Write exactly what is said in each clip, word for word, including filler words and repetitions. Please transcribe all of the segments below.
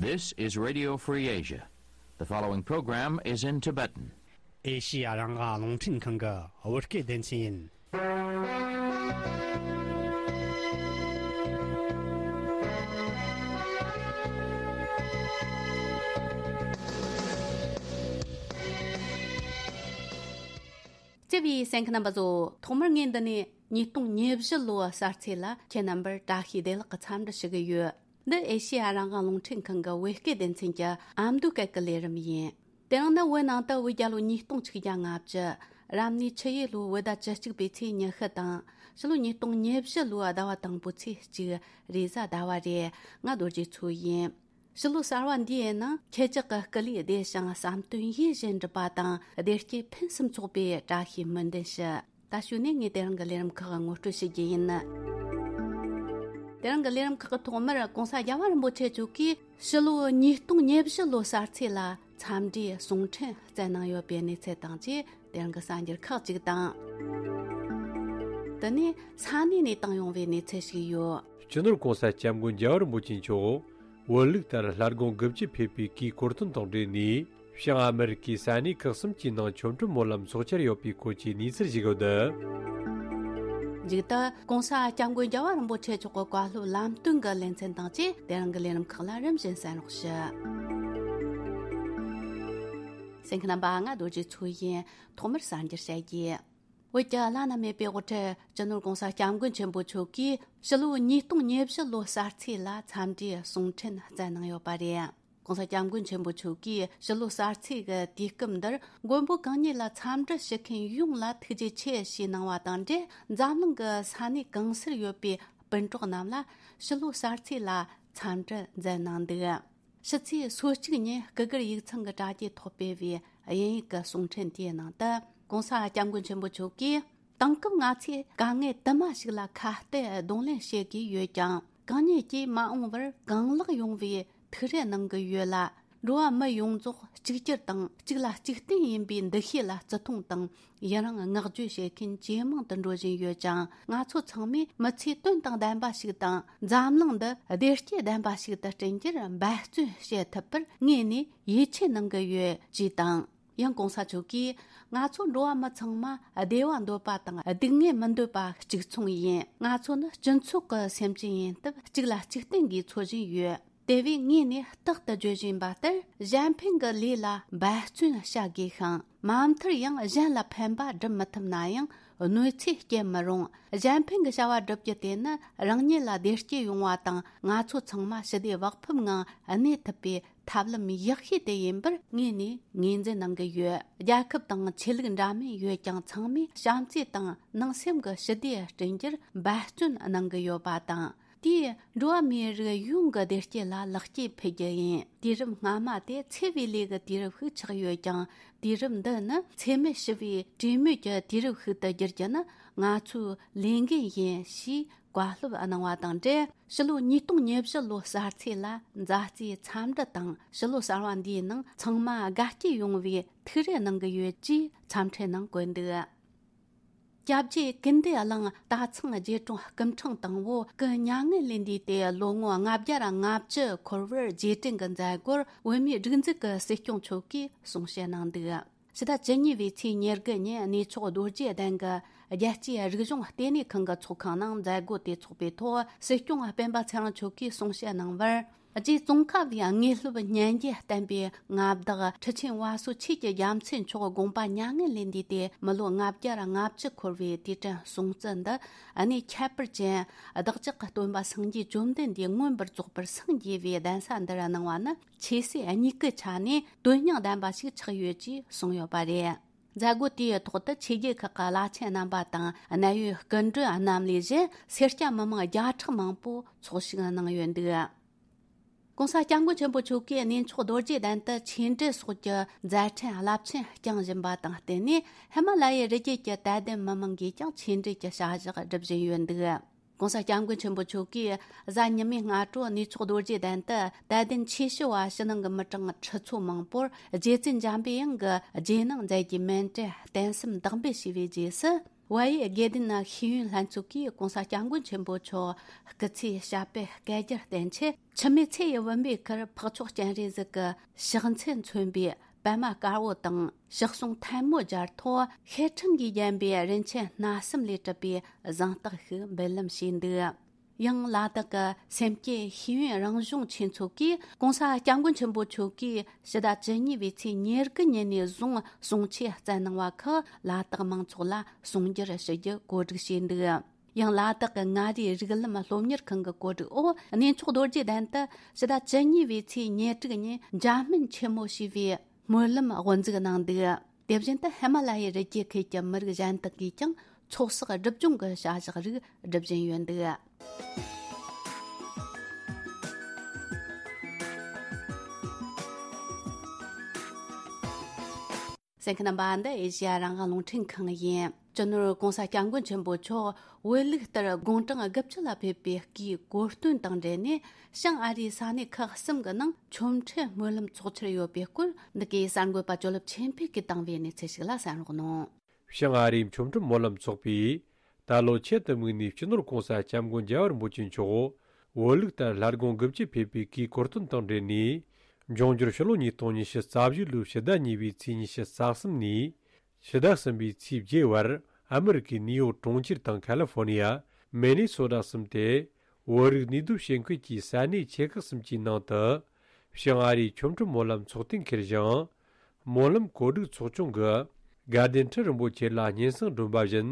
This is Radio Free Asia. The following program is in Tibetan. ཨེ་ཤི་ཡ་རང་དབང་རླུང་འཕྲིན་ཁང་གི་བོད་སྐད་སྡེ་ཚན་ཡིན། བརྩེ་བའི་གསན་མཁན་རྣམ་པ་ཚོ། ཐོག་མར་ངས་འདི་ནས་ཉིས་སྟོང་ཉེར་བཞི་ལོའི་གསར་ཚེས་ལ་ཁྱེད་རྣམ་པར་བཀྲ་ཤིས་བདེ་ལེགས་ཀྱི་འཚམས་འདྲི་ཞུ་གི་ཡོད། འདི་ཨེ་ཤེ་ཡ་རང་དབང་རླུང་འཕྲིན་ཁང་གི་བོད་སྐད་སྡེ་ཚན་གྱི་ཨ་མདོའི་སྐད་ཀྱི་ལས་རིམ་ཡིན། དེ་རིང་ནི་བོད་ནང་དུ་བོད་རྒྱལ་ལོ་ཉིས་སྟོང་ཆིག་བརྒྱ་ལྔ་བཅུ། རབ་གནས་ཆུ་ཡོས་ལོའི་བོད་ཟླ་བཅུ་གཅིག་པའི་ཚེས་ཉི་ཤུ་དང་། ཕྱི་ལོ་ཉིས་སྟོང་ཉེར་བཞི་ལོའི་ཟླ་བ་དང་པོའི་ཚེས་གཅིག་རེས་གཟའ་ཟླ་བ་རེད། ང་རྡོ་རྗེ་མཚོ་ཡིན། ཕྱི་ལོ་གསར་བ་འདིའི་ནང་ཁྱེད་ཅག་གི་སྐུ་ལུས་བདེ་ཞིང་བསམ་དོན་ཡིད་བཞིན་འགྲུབ་པ་དང་། བདེ་སྐྱིད་ཕུན་སུམ་ཚོགས་པའི་བཀྲ་ཤིས་སྨོན་འདུན་ཞུ། ད་གཞུག་ནས་ངས་དེ་རིང་གི་ལས་རིམ་ཁག་ངོ་སྤྲོད་ཞུ་རྒྱུ་ཡིན། དེ་རིང་གི་ལས་རིམ་ཁག་གི་ཐོག་མར་༸གོང་ས་༸རྒྱལ་བ་རིན་པོ་ཆེ་མཆོག་གིས་ཕྱི་ལོ་ཉིས་སྟོང་ཉེར་བཞི་ལོའི་གསར་ཚེས་ལ་འཚམས་འདྲིའི་གསུང་འཕྲིན་བསྩལ་གནང་ཡོད་པའི་གནས་ཚུལ་དང་བཅས། དེ་རིང་གི་གསར་འགྱུར་ཁག་ཅིག་དང་། དེ་ནས་ས་གནས་ནས་བཏང་ཡོང་བའི་གནས་ཚུལ་ཞིག་ཡོད། སྤྱི་ནོར་༸གོང་ས་༸སྐྱབས་མགོན་རྒྱལ་བ་རིན་པོ་ཆེ་མཆོག་བོད་ལུགས་ལྟར་ལྷ་དགོན་དགུ་བཅུ་ཕེབས་པའི་གུས་བཀུར་སྟོན་དང་འབྲེལ་ནས། བྱང་ཨ་མེ་རི་ཀའི་ས་གནས་ཁག་གསུམ་གྱི་ནང་ཆོ་འཕྲུལ་སྨོན་ལམ་ཚོགས་འཆར་ཡོད་པའི་སྐོར་གྱི་གནས་ཚུལ་ཞིག་ཡོད། མཇུག་ཏུ་༸གོང་ས་༸སྐྱབས་མགོན་རྒྱལ་བ་རིན་པོ་ཆེ་མཆོག་གི་བཀའ་སློབ་ལམ་སྟོན་གྱི་ལེ་ཚན་དང་བཅས། དེ་རིང་གི་ལས་རིམ་ཁག་ལ་རིམ་བཞིན་གསན་རོགས་ཞུ། གསན་མཁན་རྣམ་པ། ང་རྡོ་རྗེ་མཚོ་ཡིན། ཐོག་མར་གསར་འགྱུར་བཤད་རྒྱུ། བོད་ཀྱི་བླ་ན་མེད་པའི་དབུ་ཁྲིད་སྤྱི་ནོར་༸གོང་ས་༸སྐྱབས་མགོན་ཆེན་པོ་མཆོག་གིས་ཕྱི་ལོ་ཉིས་སྟོང་ཉེར་བཞི་ལོའི་གསར་ཚེས་ལ་འཚམས་འདྲིའི་གསུང་འཕྲིན་བསྩལ་གནང་ཡོད་པ་རེད། ༸གོང་ས་༸སྐྱབས་མགོན་ཆེན་པོ་མཆོག་གིས་ཕྱི་ལོའི་གསར་ཚེས་ཀྱི་དུས་སྐབས་འདིར་མགོན་པོ་གང་ཉིད་ལ་འཚམས་འདྲི་ཞུ་མཁན་ཡོངས་ལ་ཐུགས་རྗེ་ཆེ་ཞེས་གནང་བ་དང་འབྲེལ། འཛམ་གླིང་གི་ས་གནས་གང་སར་ཡོད་པའི་སྤུན་གྲོགས་རྣམས་ལ་ཕྱི་ལོའི་གསར་ཚེས་ལ་འཚམས་འདྲི་མཛད་གནང་འདུག། ཕྱི་ཚེས་སོ་གཅིག་ཉིན་སྐུ་སྒེར་ཡིག་ཚང་གི་དྲ་རྒྱའི་ཐོག་སྤེལ་བའི་དབྱིན་ཡིག་གི་གསུང་འཕྲིན་དེའི་ནང་དུ། ༸གོང་ས་༸སྐྱབས་མགོན་ཆེན་པོ་མཆོག་གིས། དེང་སྐབས་ང་ཚོས་དཀའ་ངལ་དུ་མ་ཞིག་ལ་ཁ་གཏད་གདོང་ལེན་བྱེད་དགོས་ཡོད་ཀྱང་། གང་ཉིད་ཀྱིས་མ་འོངས་པར་གང་ལེགས་ཡོང་བའི་ཐུགས་རེ་གནང་གི་ཡོད་ལ། འགྲོ་བ་མི་ཡོངས་རྫོགས་གཅིག་གྱུར་དང་གཅིག་ལ་གཅིག་བརྟེན་ཡིན་པའི་འདུ་ཤེས་ལ་བརྩི་མཐོང་དང་ཡི་རང་བསྔགས་བརྗོད་བྱེད་མཁན་ཇེ་མང་དུ་འགྲོ་བཞིན་ཡོད་ཅིང་། ང་ཚོ་ཚང་མས་མི་ཚེ་དོན་དང་ལྡན་པ་ཞིག་དང་། འཛམ་གླིང་འདི་བདེ་སྐྱིད་ལྡན་པ་ཞིག་ཏུ་བསྐྲུན་རྒྱུར་འབད་བརྩོན་བྱེད་ཐུབ་པར་དངོས་ནས་ཡིད་ཆེས་གནང་གི་ཡོད་ཅེས་དང་། ཡང་༸གོང་ས་མཆོག་གིས། ང་ཚོ་འགྲོ་བ་མི་ཚང་མ་བདེ་བ་འདོད་པ་དང་སྡུག་བསྔལ་མི་འདོད་པ་གཅིག་མཚུངས་ཡིན། ང་ཚོ་ནི་སྤྱི་ཚོགས་ཀྱི་སེམས་ཅན་ཡིན་སྟབས། གཅིག་ལ་གཅིག་བརྟེན་དགོས་ཚོར་བཞིན་ཡོད། དེ་བས་ངས་ནས་རྟག་ཏུ་བརྗོད་བཞིན་པ་ལྟར། གཞན་ཕན་གྱི་ལས་ལ་འབད་བརྩོན་བྱ་དགོས་ཤིང་། མ་མཐར་ཡང་གཞན་ལ་ཕན་པ་སྒྲུབ་མི་ཐུབ་ན་ཡང་གནོད་འཚེ་སྐྱེལ་མི་རུང་། གཞན་ཕན་གྱི་བྱ་བ་བསྒྲུབ་རྒྱུ་དེ་ནི་རང་ཉིད་ལ་བདེ་སྐྱིད་ཡོང་བ་དང་། ང་ཚོ་ཚང་མ་ཞི་བདེ་བག་ཕེབས་ངང་གནས་ཐུབ་པའི་ཐབས་ལམ་ཡག་ཤོས་དེ་ཡིན་པར་དངོས་ནས་ངོས་འཛིན་གནང་གི་ཡོད། རྒྱལ་ཁབ་དང་ཆོས་ལུགས་འདྲ་མིན་ཡོད་ཀྱང་། ཚང་མས་བྱམས་བརྩེ་དང་ནང་སེམས་ཀྱི་ཞི་བདེ་བསྐྲུན་རྒྱུར་འབད་བརྩོན་གནང་གི་ཡོད་པ་དང་། དེས་འགྲོ་བ་མིའི་རིགས་ཡོངས་ཀྱི་བདེ་སྐྱིད་ལ་ལེགས་སྐྱེས་ཕུལ་རྒྱུ་ཡིན། དུས་རབས་སྔ་མ་དེ་འཚེ་བའི་ལས་ཀྱི་དུས་རབས་ཤིག་ཆགས་ཡོད་ཀྱང་། དུས་རབས་འདི་ནི་འཚེ་མེད་ཞི་བའི་གྲོས་མོལ་གྱི་དུས་རབས་ཤིག་ཏུ་བསྒྱུར་རྒྱུ་ནི་ང་ཚོའི་ལས་འགན་ཡིན་ཞེས། བཀའ་སློབ་གནང་བ་དང་འབྲེལ། ཕྱི་ལོ་ཉིས་སྟོང་ཉེར་བཞི་ལོའི་གསར་ཚེས་ལ་མཛའ་བརྩེའི་འཚམས་འདྲི་དང་། ཕྱི་ལོ་གསར་བ་འདིའི་ནང་ཚང་མ་དགའ་སྐྱིད་ཡོང་བའི་ཐུགས་རེ་གནང་གི་ཡོད་ཅེས་འཚམས་འཕྲིན་ནང་བཀོད་འདུག། སྐྱབས་རྗེ་ཀུན་བདེ་གླིང་སྟག་ཚང་རྗེ་དྲུང་སྐུ་ཕྲེང་དང་པོ་སྐུ་མྱ་ངན་ལས་འདས་ཏེ་ལོ་ངོ་ལྔ་བརྒྱ་ལྔ་བཅུ་འཁོར་བར་རྗེས་དྲན་གྱི་མཛད་སྒོར་བོད་མིའི་སྒྲིག་འཛུགས་ཀྱི་སྲིད་སྐྱོང་མཆོག་གིས་གསུང་བཤད་གནང་འདུག། ཕྱི་ཟླ་བཅུ་གཉིས་པའི་ཚེས་ཉེར་དགུ་ཉིན་གནས་མཆོག་རྡོ་རྗེ་གདན་གྱི་རྒྱལ་སྤྱིའི་རིག་གཞུང་ལྟེ་གནས་ཁང་གི་ཚོགས་ཁང་ནང་མཛད་སྒོ་དེ་ཚོགས་པའི་ཐོག་སྲིད་སྐྱོང་སྤེན་པ་ཚེ་རིང་མཆོག་གིས་གསུང་བཤད་གནང་བར། རྗེ་ཙོང་ཁ་པའི་དངོས་སློབ་སྙན་རྒྱན་བསྟན་པའི་མངའ་བདག་ཁྲི་ཆེན་བ་སོ་ཆོས་ཀྱི་རྒྱལ་མཚན་མཆོག་དགོངས་པ་མྱ་ངན་ལས་འདས་ཏེ་མི་ལོ་ལྔ་བརྒྱ་ལྔ་བཅུ་འཁོར་བའི་དུས་དྲན་སྲུང་བརྩི་འདི་གནས་ཁྱད་པར་ཅན་བདག་ཅག་གི་སྟོན་པ་སངས་རྒྱས་བཅོམ་ལྡན་འདས་མངོན་པར་རྫོགས་པར་སངས་རྒྱས་པའི་གདན་ས་འདིར་གནང་བ་ནི། ཆོས་སྲིད་གཉིས་ཀའི་ཆ་ནས་དོན་སྙིང་ལྡན་པ་ཞིག་ཆགས་ཡོད་ཅེས་གསུངས་ཡོད་པ་རེད། མཛད་སྒོ་དེའི་ཐོག་ཏུ་ཆོས་བརྒྱུད་ཁག་གི་བླ་ཆེན་རྣམ་པ་དང་། གནད་ཡོད་སྐུ་མགྲོན་རྣམས་ལས་གཞན་སེར་སྐྱ་མི་མང་བརྒྱ་ཕྲག་མང་པོ་ཚོགས་ཞུགས་གནང་ཡོད་འདུག། ྋགོང་ས་ྋསྐྱབས་མགོན་ཆེན་པོ་མཆོག་གིས་གནས་མཆོག་རྡོ་རྗེ་གདན་དུ་ཆོས་འབྲེལ་སོགས་ཀྱི་མཛད་འཕྲིན་རླབས་ཆེན་བསྐྱངས་བཞིན་པ་དང་བསྟུན་ནས། ཧི་མ་ལ་ཡའི་རི་རྒྱུད་ཀྱི་དད་ལྡན་མི་མང་གིས་ཀྱང་ཆོས་འབྲེལ་གྱི་བྱ་གཞག་སྒྲུབ་བཞིན་ཡོད་འདུག། ྋགོང་ས་ྋསྐྱབས་མགོན་ཆེན་པོ་མཆོག་གིས་གཟའ་ཉི་མའི་སྔ་དྲོ་གནས་མཆོག་རྡོ་རྗེ་གདན་དུ་དད་ལྡན་ཆོས་ཞུ་བ་ཕྱི་ནང་གི་མི་གྲངས་ཁྲི་ཚོ་མང་པོར་རྗེ་བཙུན་འཇམ་པའི་དབྱངས་ཀྱི་རྗེས་གནང་མཛད་རྒྱུའི་མཎྜལ་རྟེན་གསུམ་བདག་འབུལ་ཞུས་པའི་རྗེས་སུ། བལ་ཡུལ་དགེ་ལྡན་ཤེས་ཡོན་ལྷན་ཚོགས་ཀྱིས་༸གོང་ས་༸སྐྱབས་མགོན་ཆེན་པོ་མཆོག་སྐུ་ཚེའི་ཞབས་པད་བསྐལ་བརྒྱར་བརྟན་ཆེད། འཆི་མེད་ཚེ་ཡི་བུམ་པའི་ཁར་འཕགས་མཆོག་སྤྱན་རས་གཟིགས་ཀྱི་ཕྱག་མཚན་མཚོན་པའི་པད་མ་དཀར་པོ་དང་ཕྱག་ཟུང་ཐལ་མོ་སྦྱར་ཐོག་ཤེལ་ཕྲེང་གིས་བརྒྱན་པའི་རིན་ཆེན་སྣ་གསུམ་ལས་གྲུབ་པའི་གཟེངས་རྟགས་ཤིག་འབུལ་ལམ་བྱས་འདུག། ཡང་ལ་དྭགས་ཀྱི་སེམས་བསྐྱེད་ཤེས་ཡོན་རང་གཞུང་ཆོས་ཚོགས་ཀྱིས་༸གོང་ས་༸སྐྱབས་མགོན་ཆེན་པོ་མཆོག་གིས་ཕྱི་ཟླ་བཅུ་གཉིས་པའི་ཚེས་ཉེར་དགུ་ཉིན་ནས་བཟུང་གསུང་ཆོས་སྩལ་གནང་བ་ཁག་ལ་དྭགས་མང་ཚོགས་ལ་གསུང་སྒྱུར་ཞུ་རྒྱུ་གོ་སྒྲིག་བྱས་འདུག། ཡང་ལ་དྭགས་ཀྱི་མངའ་རིས་རིགས་ལམ་སློབ་གཉེར་ཁང་གི་གོ་སྒྲིག་འོག་གནས་མཆོག་རྡོ་རྗེ་གདན་དུ་ཕྱི་ཟླ་བཅུ་གཉིས་པའི་ཚེས་ཉེར་དྲུག་ཉིན་འཇམ་སྨན་ཆེན་མོ་ཞེས་པའི་སྨོན་ལམ་དབུ་འཛུགས་གནང་འདུག། དེ་བཞིན་དུ་ཧི་མ་ལ་ཡའི་རི་རྒྱུད་ཁུལ་གྱི་མི་རིགས་གཞན་དག་གིས་ཀྱང་ཚོགས་བསགས་སྒྲུབ་སྦྱོང་གི་བྱ་གཞག་རིགས་སྒྲུབ་བཞིན་ཡོད་འདུག། གསན་མཁན་རྣམ་པ། འདི་ཨེ་ཤེ་ཡ་རང་དབང་རླུང་འཕྲིན་ཁང་ཡིན། སྤྱི་ནོར་༸གོང་ས་༸སྐྱབས་མགོན་ཆེན་པོ་མཆོག་བོད་ལུགས་ལྟར་དགུང་གྲངས་དགུ་བཅུ་ལ་ཕེབས་པའི་སྐུའི་གོ་སྟོན་དང་འབྲེལ་ནས། བྱང་ཨ་རིའི་ས་གནས་ཁག་གསུམ་གྱི་ནང་ཆོ་འཕྲུལ་སྨོན་ལམ་ཚོགས་འཆར་ཡོད་པའི་སྐོར། འདི་གའི་གསར་འགོད་པ་ཇོ་ལེབ་ཆོས་འཕེལ་གྱིས་བཏང་བའི་གནས་ཚུལ་ཞིག་ལ་གསན་རོགས་གནང་། བྱང་ཨ་རིའི་ཆོ་འཕྲུལ་སྨོན་ལམ་ཚོགས་པས་ད་ལོ་ཆེད་དུ་དམིགས་ནས་སྤྱི་ནོར་༸གོང་ས་༸སྐྱབས་མགོན་རྒྱལ་བ་རིན་པོ་ཆེ་མཆོག་བོད་ལུགས་ལྟར་སླར་དགུང་དགུ་བཅུ་ཕེབས་པའི་གུས་གོ་སྟོན་དང་འབྲེལ་ནས། འབྱུང་འགྱུར་ཕྱི་ལོ་ཉིས་སྟོང་ཉི་ཤུ་རྩ་བཞི་ལོའི་ཕྱི་ཟླ་གཉིས་པའི་ཚེས་ཉི་ཤུ་རྩ་གསུམ་ནས་ཕྱི་ཟླ་གསུམ་པའི་ཚེས་བརྒྱད་བར་ཨ་མི་རི་ཀའི་ནིའུ་ཡོག་གྲོང་ཁྱེར་དང་ཁ་ལི་ཧྥོར་ནི་ཡ། མེ་ནི་སོ་ཊ་གསུམ་སྟེ། བོད་རིགས་ནུས་སྟོབས་ཞིང་ཁུལ་གྱི་ས་གནས་ཆེ་ཁག་གསུམ་གྱི་ནང་དུ། བྱང་ཨ་རིའི་ཆོ་འཕྲུལ་སྨོན་ལམ་ཚོགས་ཐེངས་འཁེལ་ཞིང་། སྨོན་ལམ་གོ་སྒྲིག་ཚོགས་ཆུང་གིས་དགའ་ལྡན་ཁྲི་རིན་པོ་ཆེ་ལ་སྙན་སེང་བསྒྲོན་པ་བཞིན།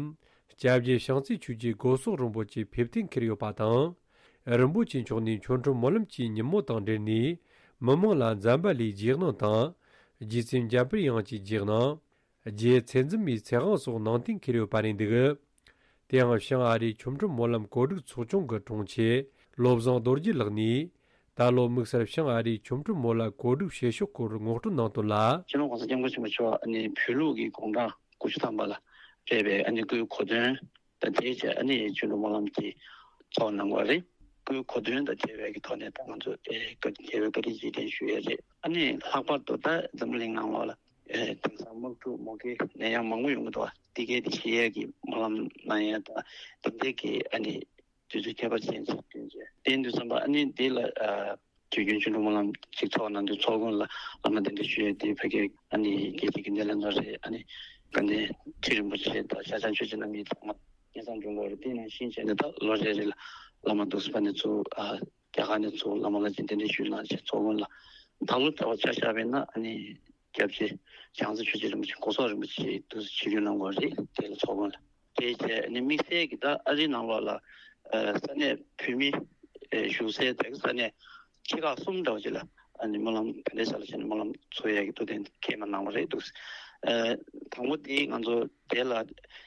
སྐྱབས་རྗེ་བྱང་རྩེ་ཆོས་རྗེ་སྒོ་གསོག་རིན་པོ་ཆེ་ཕེབས་ཐེངས་འཁེལ་ཡོད་པ་དང་། རིན་པོ་ཆེ་མཆོག་ནས་ཆོ་འཕྲུལ་སྨོན་ལམ་གྱི་ཉིན་མོ་དང་འབྲེལ་ནས། མི་མང་ལ་འཛམ་བྷ་ལའི་རྗེས་གནང་དང་། རྗེ་བཙུན་འཇམ་དཔལ་དབྱངས་ཀྱི་རྗེས་གནང་། རྗེ་ཚད་འཛིན་མའི་ཚེ་དབང་སོགས་གནང་སྟེ་འཁེལ་ཡོད་པ་རེད་འདུག། དེ་ཡང་བྱང་ཨ་རིའི་ཆོ་འཕྲུལ་སྨོན་ལམ་གོ་སྒྲིག་ཚོགས་ཆུང་གི་དྲུང་ཆེ་བློ་བཟང་རྡོ་རྗེ་ལགས་ནས། ད་ལོ་དམིགས་བསལ་བྱང་ཨ་རིའི་ཆོ་འཕྲུལ་སྨོན་ལམ་གོ་སྒྲིག་བྱེད་ཕྱོགས་སྐོར་ངོ་སྤྲོད་གནང་དོན་ལ། སྤྱི་ནོར་༸གོང་ས་༸སྐྱབས་མགོན་ཆེན་པོ་མཆོག་ཨ་ནི་བོད་ལུགས་ཀྱི་དགུང་གྲངས་དགུ་བཅུ་ཐམ་པ་ལ་ཕེབས་པའི་ཨ་ནི་སྐུའི་གོ་སྟོན་དང་དེའི་རྗེས་ཨ་ནི་ཆོ་འཕྲུལ་སྨོན་ལམ་དེ་ཚོགས་གནང་བ་རེད། སྐུའི་གོ་སྟོན་དང་འབྲེལ་བའི་གི་ཐོག་ནས་ད་ང་ཚོ་ཨེ་བཀའ་དྲིན་རྗེས་དྲན་ཞུ་ཡས་རེད། ཨ་ནི་ལྷག་པར་དུ་ད་འཛམ་བུ་གླིང་ནང་ལོགས་ལ་ཨེ་དེང་སང་དམག་འཁྲུག་མུ་གེ་ནད་ཡམས་མང་པོ་ཡོང་གི་འདུག་བ། དེ་གའི་དེ་ཞི་ཡས་ཀྱི་སྨོན་ལམ་གནང་ཡས་དང་དེ་འདྲའི་གི་ཨ་ནི་དུས་ཚོད་ཁྱད་པར་ཅན་ཞིག་བསྟུན་བྱས་བསྟན་དུས་ཙམ་པ་ཨ་ནི་འདི་ལ་ཨ་དུས་རྒྱུན་ཆོ་འཕྲུལ་སྨོན་ལམ་ཅིག་ཚོགས་གནང་དུས་ཚོགས་མགོན་ལ་བླ་མ་གདན་འདྲེན་ཞུ་ཡས་དེ་ཕ་གི་ཨ་ནི་རྒྱལ་སྤྱིའི་གི་སྣེ་ལེན་པ་རེད། ཨ་ནི་དགའ་ལྡན་ཁྲི་རིན་པོ་ཆེ་དང་ཤར་བྱང་ཆོས་རྗེ་རྣམ་གཉིས་ཚང་མ་སྙན་སེང་འབྱོར་འགོ་རེད། དེ་ནང་བཞིན་བྱས་ནས་ད་ལོ་རེ་རེ་ལ་བླ་མ་འདུག་སེ་ཕ་ནས་ཚུར་ཨ་རྒྱ་གར་ནས་ཚུར་བླ་མ་ལ་ཅིག་གདན་འདྲེན་ཞུས་གནང་བྱས་ཚོགས་མགོན་ལ་ད་ལོ་ལྟ་བ་ཆ་བཞག་པས་ན་ཨ་ནི་སྐྱབས་རྗེ་བྱང་རྩེ་ཆོས་རྗེ་རིན་པོ་ཆེ་སྒོ་གསོག་རིན་པོ་ཆེ་འདུག་སེ་ཆིབས་བསྒྱུར་གནང་དགོས་རེད། དེ་ལ་ཚོགས་མགོན་ལ་དེའི་རྗེས་ཨ་ནི་དམིགས་བསལ་གྱི་ད་ཨ་རིའི་ནང་ལོགས་ལ་ཨ་ས་གནས་བོད་མི་ཨ་བཞུགས་སའི་དེ་གི་ས་གནས་ཆེ་ཁག་གསུམ་འདྲ་བོ་ཅིག་ལ་ཨ་ནི་སྨོན་ལམ་ག་འདྲས་ས་ལ་བྱས་ནས་སྨོན་ལམ་ཚོགས་ཡག་གི་ཐུགས་གཏན་འཁེལ་མ་གནང་བ་རེད་འདུག་ཨ་དང་པོ་དེ་ང་ཚོ་དེ་ལ་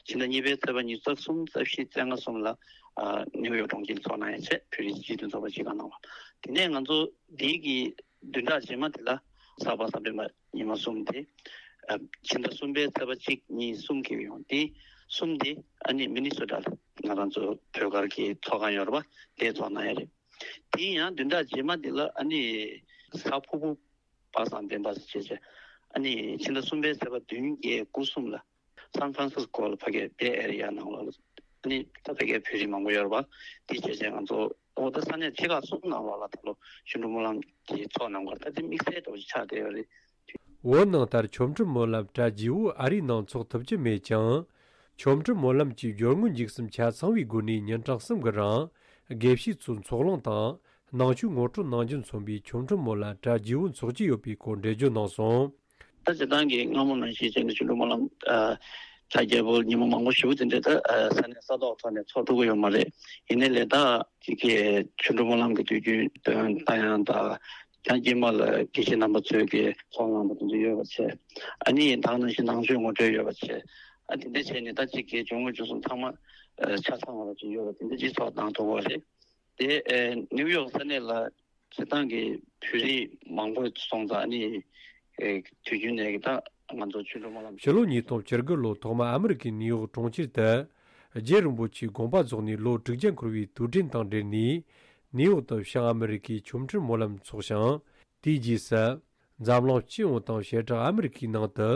ཕྱི་ཟླ་གཉིས་པའི་ཚེས་པ་ཉི་ཤུ་རྩ་གསུམ་རྩ་བཞི་རྩ་ལྔ་གསུམ་ལ་ཨ་ནིའུ་ཡོག་གྲོང་ཁྱེར་ཚོགས་གནང་ཡག་བྱས། བོད་རིགས་སྤྱི་མཐུན་ཚོགས་པ་སྤྱི་ཁང་གནང་བ། དེ་ནས་ང་ཚོ་འདི་གི་བདུན་ཕྲག་རྗེས་མ་དེ་ལ་གཟའ་པ་སངས་སྤྲིན་པ་ཉི་མ་གསུམ་དེ་ཨ་ཕྱི་ཟླ་གསུམ་པའི་ཚེས་པ་གཅིག་གཉིས་གསུམ་འཁེལ་གྱི་ཡོད། དེ་གསུམ་དེ་ཨ་ནི་མི་ནི་སོ་ཊ་ལ་ང་རང་ཚོ་བོད་སྒར་གྱི་ཚོགས་ཁང་ཡོད་རེད་པ། དེ་ཚོགས་གནང་ཡག་རེད། དེ་ཡང་བདུན་ཕྲག་རྗེས་མ་དེ་ལ་ཨ་ནི་གཟའ་ཕུར་བུ་པ་སངས་སྤྲིན་པ་ཟེར་བྱས་བྱས་ཨ་ནི་ཕྱི་ཟླ་གསུམ་པའི་ཚེས་པ་བདུན་བརྒྱད་དགུ་གསུམ་ལ་སན་ཧྥ་རན་སིས་ཀོ་ལ་ཕ་གིའི་བེ་ཨེ་རི་ཡ་ནང་ལོགས་ལ་ཨ་ནི་ད་ཕ་གིའི་བོད་རིགས་མང་པོ་ཡོད་རེད་པ། དེ་བྱས་བྱས་ང་ཚོ་ཨོ་ད་ས་གནས་ཆེ་ཁག་གསུམ་ནང་ལོགས་ལ་ད་ལོ་ཆོ་འཕྲུལ་སྨོན་ལམ་གྱི་ཚོགས་གནང་བར་ད་དེ་དམིགས་བསལ་འདྲ་བོ་ཞིག་ཆགས་བསྡད་ཡོད་རེད། བོད་ནང་ལྟར་ཆོ་འཕྲུལ་སྨོན་ལམ་གྲ་རྒྱས་པོ་ཨ་རིའི་ནང་ཚོགས་ཐུབ་ཀྱི་མེད་ཀྱང་། ཆོ་འཕྲུལ་སྨོན་ལམ་གྱི་སྦྱོར་དངོས་འཇིགས་གསུམ་ཆ་ཚང་བའི་སྒོ་ནས་ཉིན་གྲངས་གསུམ་གྱི་རིང་དགེ་བཤེས་ཚོས་ཚོགས་ལངས་དང་ནང་ཆོས་ངོ་སྤྲོད་གནང་རྒྱུ་མཚོན་པའི་ཆོ་འཕྲུལ་སྨོན་ལམ་གྲ་རྒྱས་པོ་འཚོགས་ཀྱི་ཡོད་པའི་སྐོར་འགྲེལ་བརྗོད་གནང་སོང་། ད་སྤྱིར་བཏང་གི་སྔ་མོ་ནང་བཞིན་བྱས་ནས་ཆོ་འཕྲུལ་སྨོན་ལམ་ཨ་གྲ་རྒྱས་པོ་ཉིན་མོ་མང་པོ་ཞེ་པོ་དེ་འདྲ་ད་ཨ་ས་གནས་ས་ཐོག་ཐོག་ནས་ཚོགས་ཐུབ་ཀྱི་ཡོད་མ་རེད། ཡིན་ནའི་ལས་ད་ཅིག་གི་ཆོ་འཕྲུལ་སྨོན་ལམ་གྱི་དུས་རྒྱུན་སྟོན་ལྟ་ཡང་དང་། ཡང་དཀྱིལ་མ་ལ་དགེ་བཤེས་རྣམ་པ་ཚོས་ཀྱི་ཚོགས་གནང་པ་དེ་ཚོ་ཡོད་པ་བྱས། ཨ་ནི་ད་ག་ནང་བཞིན་ནང་ཆོས་ངོ་སྤྲོད་ཡོད་པ་བྱས། ཨ་དེ་འདྲ་བྱས་ནས་ད་ཅིག་གི་སྦྱོར་དངོས་འཇིགས་གསུམ་ཚང་མ་ཨ་ཆ་ཚང་བ་ཅིག་ཡོད་པ་དེ་འདྲ་ཅིག་ཚོགས་གནང་ཐུབ་པ་རེད། དེ་ཨ་ནིའུ་ཡོག་ས་གནས་ལ་སྤྱིར་བཏང་གི་བོད་རིགས་མང་པོ་སོང་ཙང་ཨ་ནི་ཨ་དུས་རྒྱུན་ནས་ཀྱི་ད་ང་ཚོ་ཆོ་འཕྲུལ་སྨོན་ལམ་ཕྱི་ལོ་ཉིས་སྟོང་བཅུ་དགུ་ལོ་ཐོག་མར་ཨ་མི་རི་ཀའི་ནིའུ་ཡོག་གྲོང་ཁྱེར་དུ་རྗེ་རིན་པོ་ཆེའི་དགོངས་པ་རྫོགས་ནས་ལོ་དྲུག་བརྒྱ་འཁོར་བའི་དུས་དྲན་དང་འབྲེལ་ནས་ནིའུ་ཡོག་ཏུ་བྱང་ཨ་མི་རི་ཀའི་ཆོ་འཕྲུལ་སྨོན་ལམ་འཚོགས་ཤིང་། དེའི་རྗེས་སུ་འཛམ་གླིང་སྤྱི་ཡོངས་དང་བྱེ་བྲག་ཨ་མི་རི་ཀའི་ནང་དུ་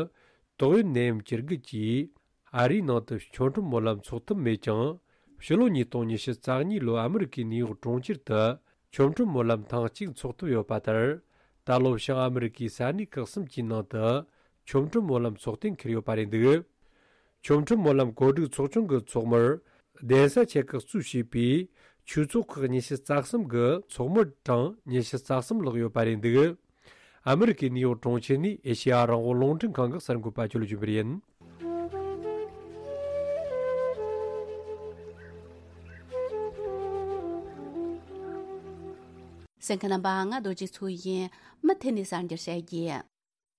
ཏོག་དབྱིབས་ནད་ཡམས་ཅན་དགུ་གིས་ ཨ་རིའི་ནང་དུ་ཆོ་འཕྲུལ་སྨོན་ལམ་འཚོགས་ཐུབ་མེད་ཀྱང་། ཕྱི་ལོ་ཉིས་སྟོང་ཉི་ཤུ་རྩ་གཉིས་ལོའི་ཨ་མི་རི་ཀའི་ནིའུ་ཡོག་གྲོང་ཁྱེར་དུ་ཆོ་འཕྲུལ་སྨོན་ལམ་ཐེངས་གཅིག་འཚོགས་ཐུབ་ཡོད་པ་ལྟར། ད་ལོ་བྱང་ཨ་མི་རི་ཀའི་ས་གནས་ཁག་གསུམ་གྱི་ནང་དུ་ཆོ་འཕྲུལ་སྨོན་ལམ་ཚོགས་གཏན་འཁེལ་ཡོད་པ་རེད་འདུག་ཆོ་འཕྲུལ་སྨོན་ལམ་གོ་སྒྲིག་ཚོགས་ཆུང་གི་ཚོགས་མིར་གདན་ས་ཆེ་ཁག་གཙོས་བྱས་པའི་ཆོས་ཚོགས་ཁག་ཉི་ཤུ་རྩ་གསུམ་གི་ཚོགས་མི་གྲངས་ཉི་ཤུ་རྩ་གསུམ་ལྷག་ཡོད་པ་རེད་འདུག་ཨ་མི་རི་ཀའི་ནིའུ་ཡོག་གྲོང་ཁྱེར་ནས་ཨེ་ཤེ་ཡ་རང་དབང་རླུང་འཕྲིན་ཁང་གི་གསར་འགོད་པ་ཇོ་ལུ་ཅུན་པར་ཡིན། གསན་མཁན་རྣམ་པ། ང་རྡོ་རྗེ་མཚོ་ཡིན། མུ་མཐུད་ནས་གསར་འགྱུར་བཤད་རྒྱུ།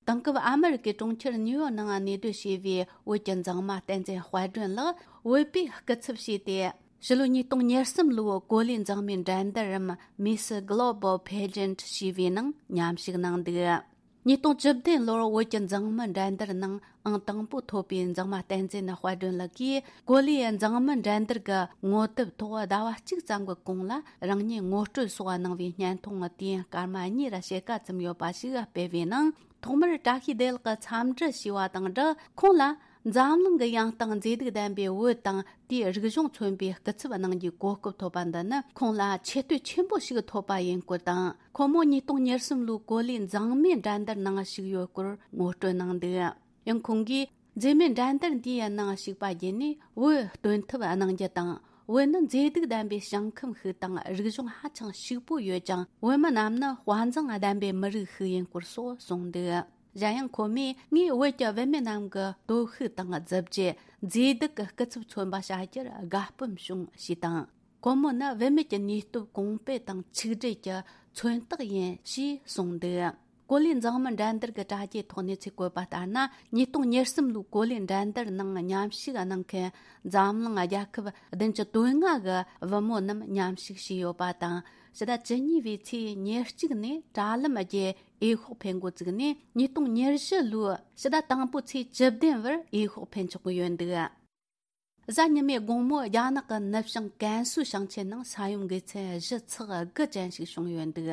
དེང་སྐབས་ཨ་མི་རི་ཀའི་གྲོང་ཁྱེར་ནིའུ་ཡོག་ནང་གནས་སྡོད་བྱས་པའི་བོད་ཀྱི་མཛངས་མ་བསྟན་འཛིན་དཔལ་སྒྲོན་ལགས་བོད་པའི་སྐུ་ཚབ་བྱས་ཏེ། ཕྱི་ལོ་ཉིས་སྟོང་ཉེར་གསུམ་ལོའི་གོ་ལའི་མཛངས་མའི་འགྲན་བསྡུར་རམ་Miss Global Pageant ཞེས་པའི་ནང་མཉམ་ཞུགས་གནང་འདུག་ཉིས་སྟོང་བཅུ་བདུན་ལོར་བོད་ཀྱི་མཛངས་མི་འགྲན་བསྡུར་ནང་ཨང་དང་པོ་ཐོབ་པའི་མཛངས་མ་བསྟན་འཛིན་དཔལ་སྒྲོན་ལགས་ཀྱིས་གོ་ལའི་མཛངས་མི་འགྲན་བསྡུར་གྱི་ངོ་དེབ་ཐོག་ཟླ་བ་གཅིག་ཙམ་གྱི་གོང་ལ་རང་ཉིད་ངོ་སྤྲོད་སོགས་གནང་བའི་བརྙན་ཐུང་དུས་ཡུན་སྐར་མ་གཉིས་ར་ཕྱེད་ཀ་ཙམ་ཡོད་པ་ཞིག་སྤེལ་བའི་ནང་། ཐོག་མར་བཀྲ་ཤིས་བདེ་ལེགས་ཀྱིས་འཚམས་འདྲི་ཞུས་པ་དང་སྦྲགས། ཁོང་ལ་འཛམ་གླིང་གི་ཡང་སྟེང་མཛེས་སྡུག་ལྡན་པའི་བོད་དང་དེའི་རིག་གཞུང་མཚོན་པའི་སྐུ་ཚབ་གནང་རྒྱུའི་གོ་སྐབས་ཐོབ་པ་འདི་ནི་ཁོང་ལ་ཆེ་བསྟོད་ཆེན་པོ་ཞིག་ཐོབ་པ་ཡིན་སྐོར་དང་། ཁོང་མོ་ཉིས་སྟོང་ཉེར་གསུམ་ལོའི་གོ་ལའི་མཛངས་མའི་འགྲན་བསྡུར་ནང་ཞུགས་ཡོད་སྐོར་ངོ་སྤྲོད་གནང་འདུག་ཡང་ཁོང་གིས། མཛེས་མའི་འགྲན་བསྡུར་འདིའི་ནང་ཞུགས་པ་བརྒྱུད་ནས་བོད་སྟོན་ཐབས་གནང་རྒྱུ་དང་། བོད་ནི་མཛེས་སྡུག་ལྡན་པའི་ཞིང་ཁམས་ཤིག་དང་རིག་གཞུང་ཧ་ཅང་ཕྱུག་པོ་ཡོད་ཅིང་། བོད་མི་རྣམས་ནི་དཔའ་མཛངས་ལྡན་པའི་མི་རིགས་ཤིག་ཡིན་སྐོར་སོགས་གསུངས་འདུག་གཞན་ཡང་ཁོ་མོས། ངས་བོད་ཀྱི་བུད་མེད་རྣམས་ཀྱི་སྟོབས་ཤུགས་དང་གཟི་བརྗིད། མཛེས་སྡུག་གི་སྐུ་ཚབ་མཚོན་པ་བྱ་རྒྱུར་དགའ་སྤོབས་བྱུང་ཞེས་དང་། ཁོ་མོ་ནི་བུད་མེད་ཀྱི་ནུས་སྟོབས་གོང་སྤེལ་དང་ཆིག་སྒྲིལ་གྱི་མཚོན་རྟགས་ཡིན་ཞེས་གསུངས་འདུག་གོ་ལའི་མཛངས་མི་འགྲན་བསྡུར་གྱི་དྲ་རྒྱའི་ཐོག་གནས་ཚུལ་བཀོད་པ་ལྟར་ན། ཉིས་སྟོང་ཉེར་གསུམ་ལོའི་གོ་ལའི་འགྲན་བསྡུར་ནང་མཉམ་ཞུགས་གནང་མཁན་འཛམ་གླིང་རྒྱལ་ཁབ་བདུན་ཅུ་དོན་ལྔ་གི་བུ་མོ་རྣམས་མཉམ་ཞུགས་བྱས་ཡོད་པ་དང་། ཕྱི་ཟླ་བཅུ་གཉིས་པའི་ཚེས་ཉེར་གཅིག་ནས་དྲ་ལམ་བརྒྱུད་འོས་ཤོག་འཕེན་འགོ་བཙུགས་ནས། ཉིས་སྟོང་ཉེར་བཞི་ལོའི་ཕྱི་ཟླ་དང་པོའི་ཚེས་བཅུ་བདུན་བར་འོས་ཤོག་འཕེན་ཆོག་གི་ཡོད་འདུག་གཟའ་ཉི་མའི་དགོང་མོ་རྒྱ་ནག་གི་ནུབ་བྱང་ཀན་སུའུ་ཞིང་ཆེན་ནང་ས་ཡོམ་འགོས་ཚད་གཞི་ཚེག་དགུ་ཅན་ཞིག་བྱུང་ཡོད་འདུག་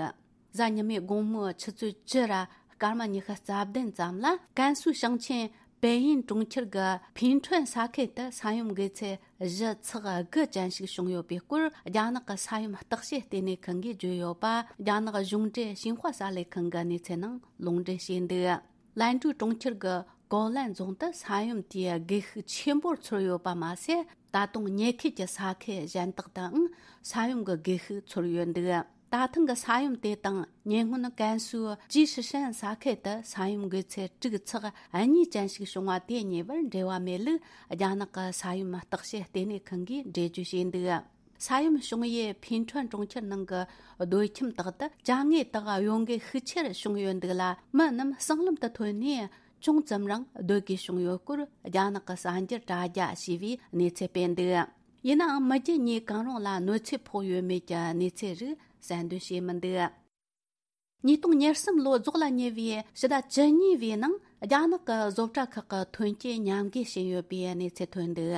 གཟའ་ཉི་མའི་དགོང་མོའི་ཆུ་ཚོད་བཅུ་ར་སྐར་མ་ཉི་ཤུ་རྩ་བདུན་ཙམ་ལ། ཀན་སུའུ་ཞིང་ཆེན་པེ་ཡིན་གྲོང་ཁྱེར་གྱི་ཕིན་ཁྲོན་ས་ཁུལ་དུ་ས་ཡོམ་འགོས་ཚད་གཞི་ཚེག་དགུ་ཅན་ཞིག་བྱུང་ཡོད་པའི་སྐོར། རྒྱ་ནག་གི་ས་ཡོམ་བརྟག་དཔྱད་ལྟེ་གནས་ཁང་གིས་བརྗོད་ཡོད་པ། རྒྱ་ནག་གཞུང་འབྲེལ་ཤིན་ཧྭ་གསར་ལས་ཁང་གི་གནས་ཚུལ་ནང་ལུང་འདྲེན་བྱས་འདུག་ལན་ཀྲུའུ་གྲོང་ཁྱེར་གྱི་ཀའོ་ལན་རྫོང་དུ་ས་ཡོམ་དེས་སྒུལ་ཤུགས་ཆེན་པོར་ཚོར་ཡོད་པ་མ་ཟད། ད་དུང་ཉེ་ཁུལ་གྱི་ས་ཁུལ་གཞན་དག་ཏུའང་ས་ཡོམ་གྱི་སྒུལ་ཤུགས་ཚོར་ཡོད་འདུག་ད་ཐེངས་ཀྱི་ས་ཡོམ་དེ་དང་ཉེ་སྔོན་ཀན་སུའུ་ཅི་ཧྲི་ཧྲན་ས་ཁུལ་དུ་ས་ཡོམ་འགོས་ཚད་དྲུག་ཚེག་གཉིས་ཅན་ཞིག་བྱུང་བ་དེ་གཉིས་བར་འབྲེལ་བ་མེད་ལུགས་རྒྱ་ནག་གི་ས་ཡོམ་བརྟག་དཔྱད་ལྟེ་གནས་ཁང་གིས་འགྲེལ་བརྗོད་བྱས་འདུག་ས་ཡོམ་བྱུང་ཡུལ་ཕིན་ཁྲོན་གྲོང་ཁྱེར་ནང་གི་སྡོད་ཁྱིམ་དག་ཏུ་ཅ་དངོས་དག་གཡོ་འགུལ་ཤུགས་ཆེར་བྱུང་ཡོད་འདུག་ལ། མི་རྣམས་སྲང་ལམ་དུ་ཐོན་ནས་ཅུང་ཙམ་རང་སྡོད་དགོས་བྱུང་ཡོད་སྐོར། རྒྱ་ནག་གི་གསར་འགྱུར་དྲ་རྒྱ་ཞེས་པས་གནས་ཚུལ་སྤེལ་འདུག་ཡིན་ནའང་མི་རྒྱུ་གཉིས་གང་རུང་ལ་གནོད་འཚེ་ཕོག་ཡོད་མེད་ཀྱི་གནས་ཚུལ་རིགས་གསལ་འདོན་བྱས་མི་འདུག་ཉིས་སྟོང་ཉེར་གསུམ་ལོ་རྫོགས་ལ་ཉེ་བའི་ཕྱི་ཟླ་བཅུ་གཉིས་པའི་ནང་རྒྱ་ནག་གི་བཟོ་གྲྭ་ཁག་གི་ཐོན་སྐྱེད་ཉམས་རྒུད་ཕྱིན་ཡོད་པའི་གནས་ཚུལ་ཐོན་འདུག་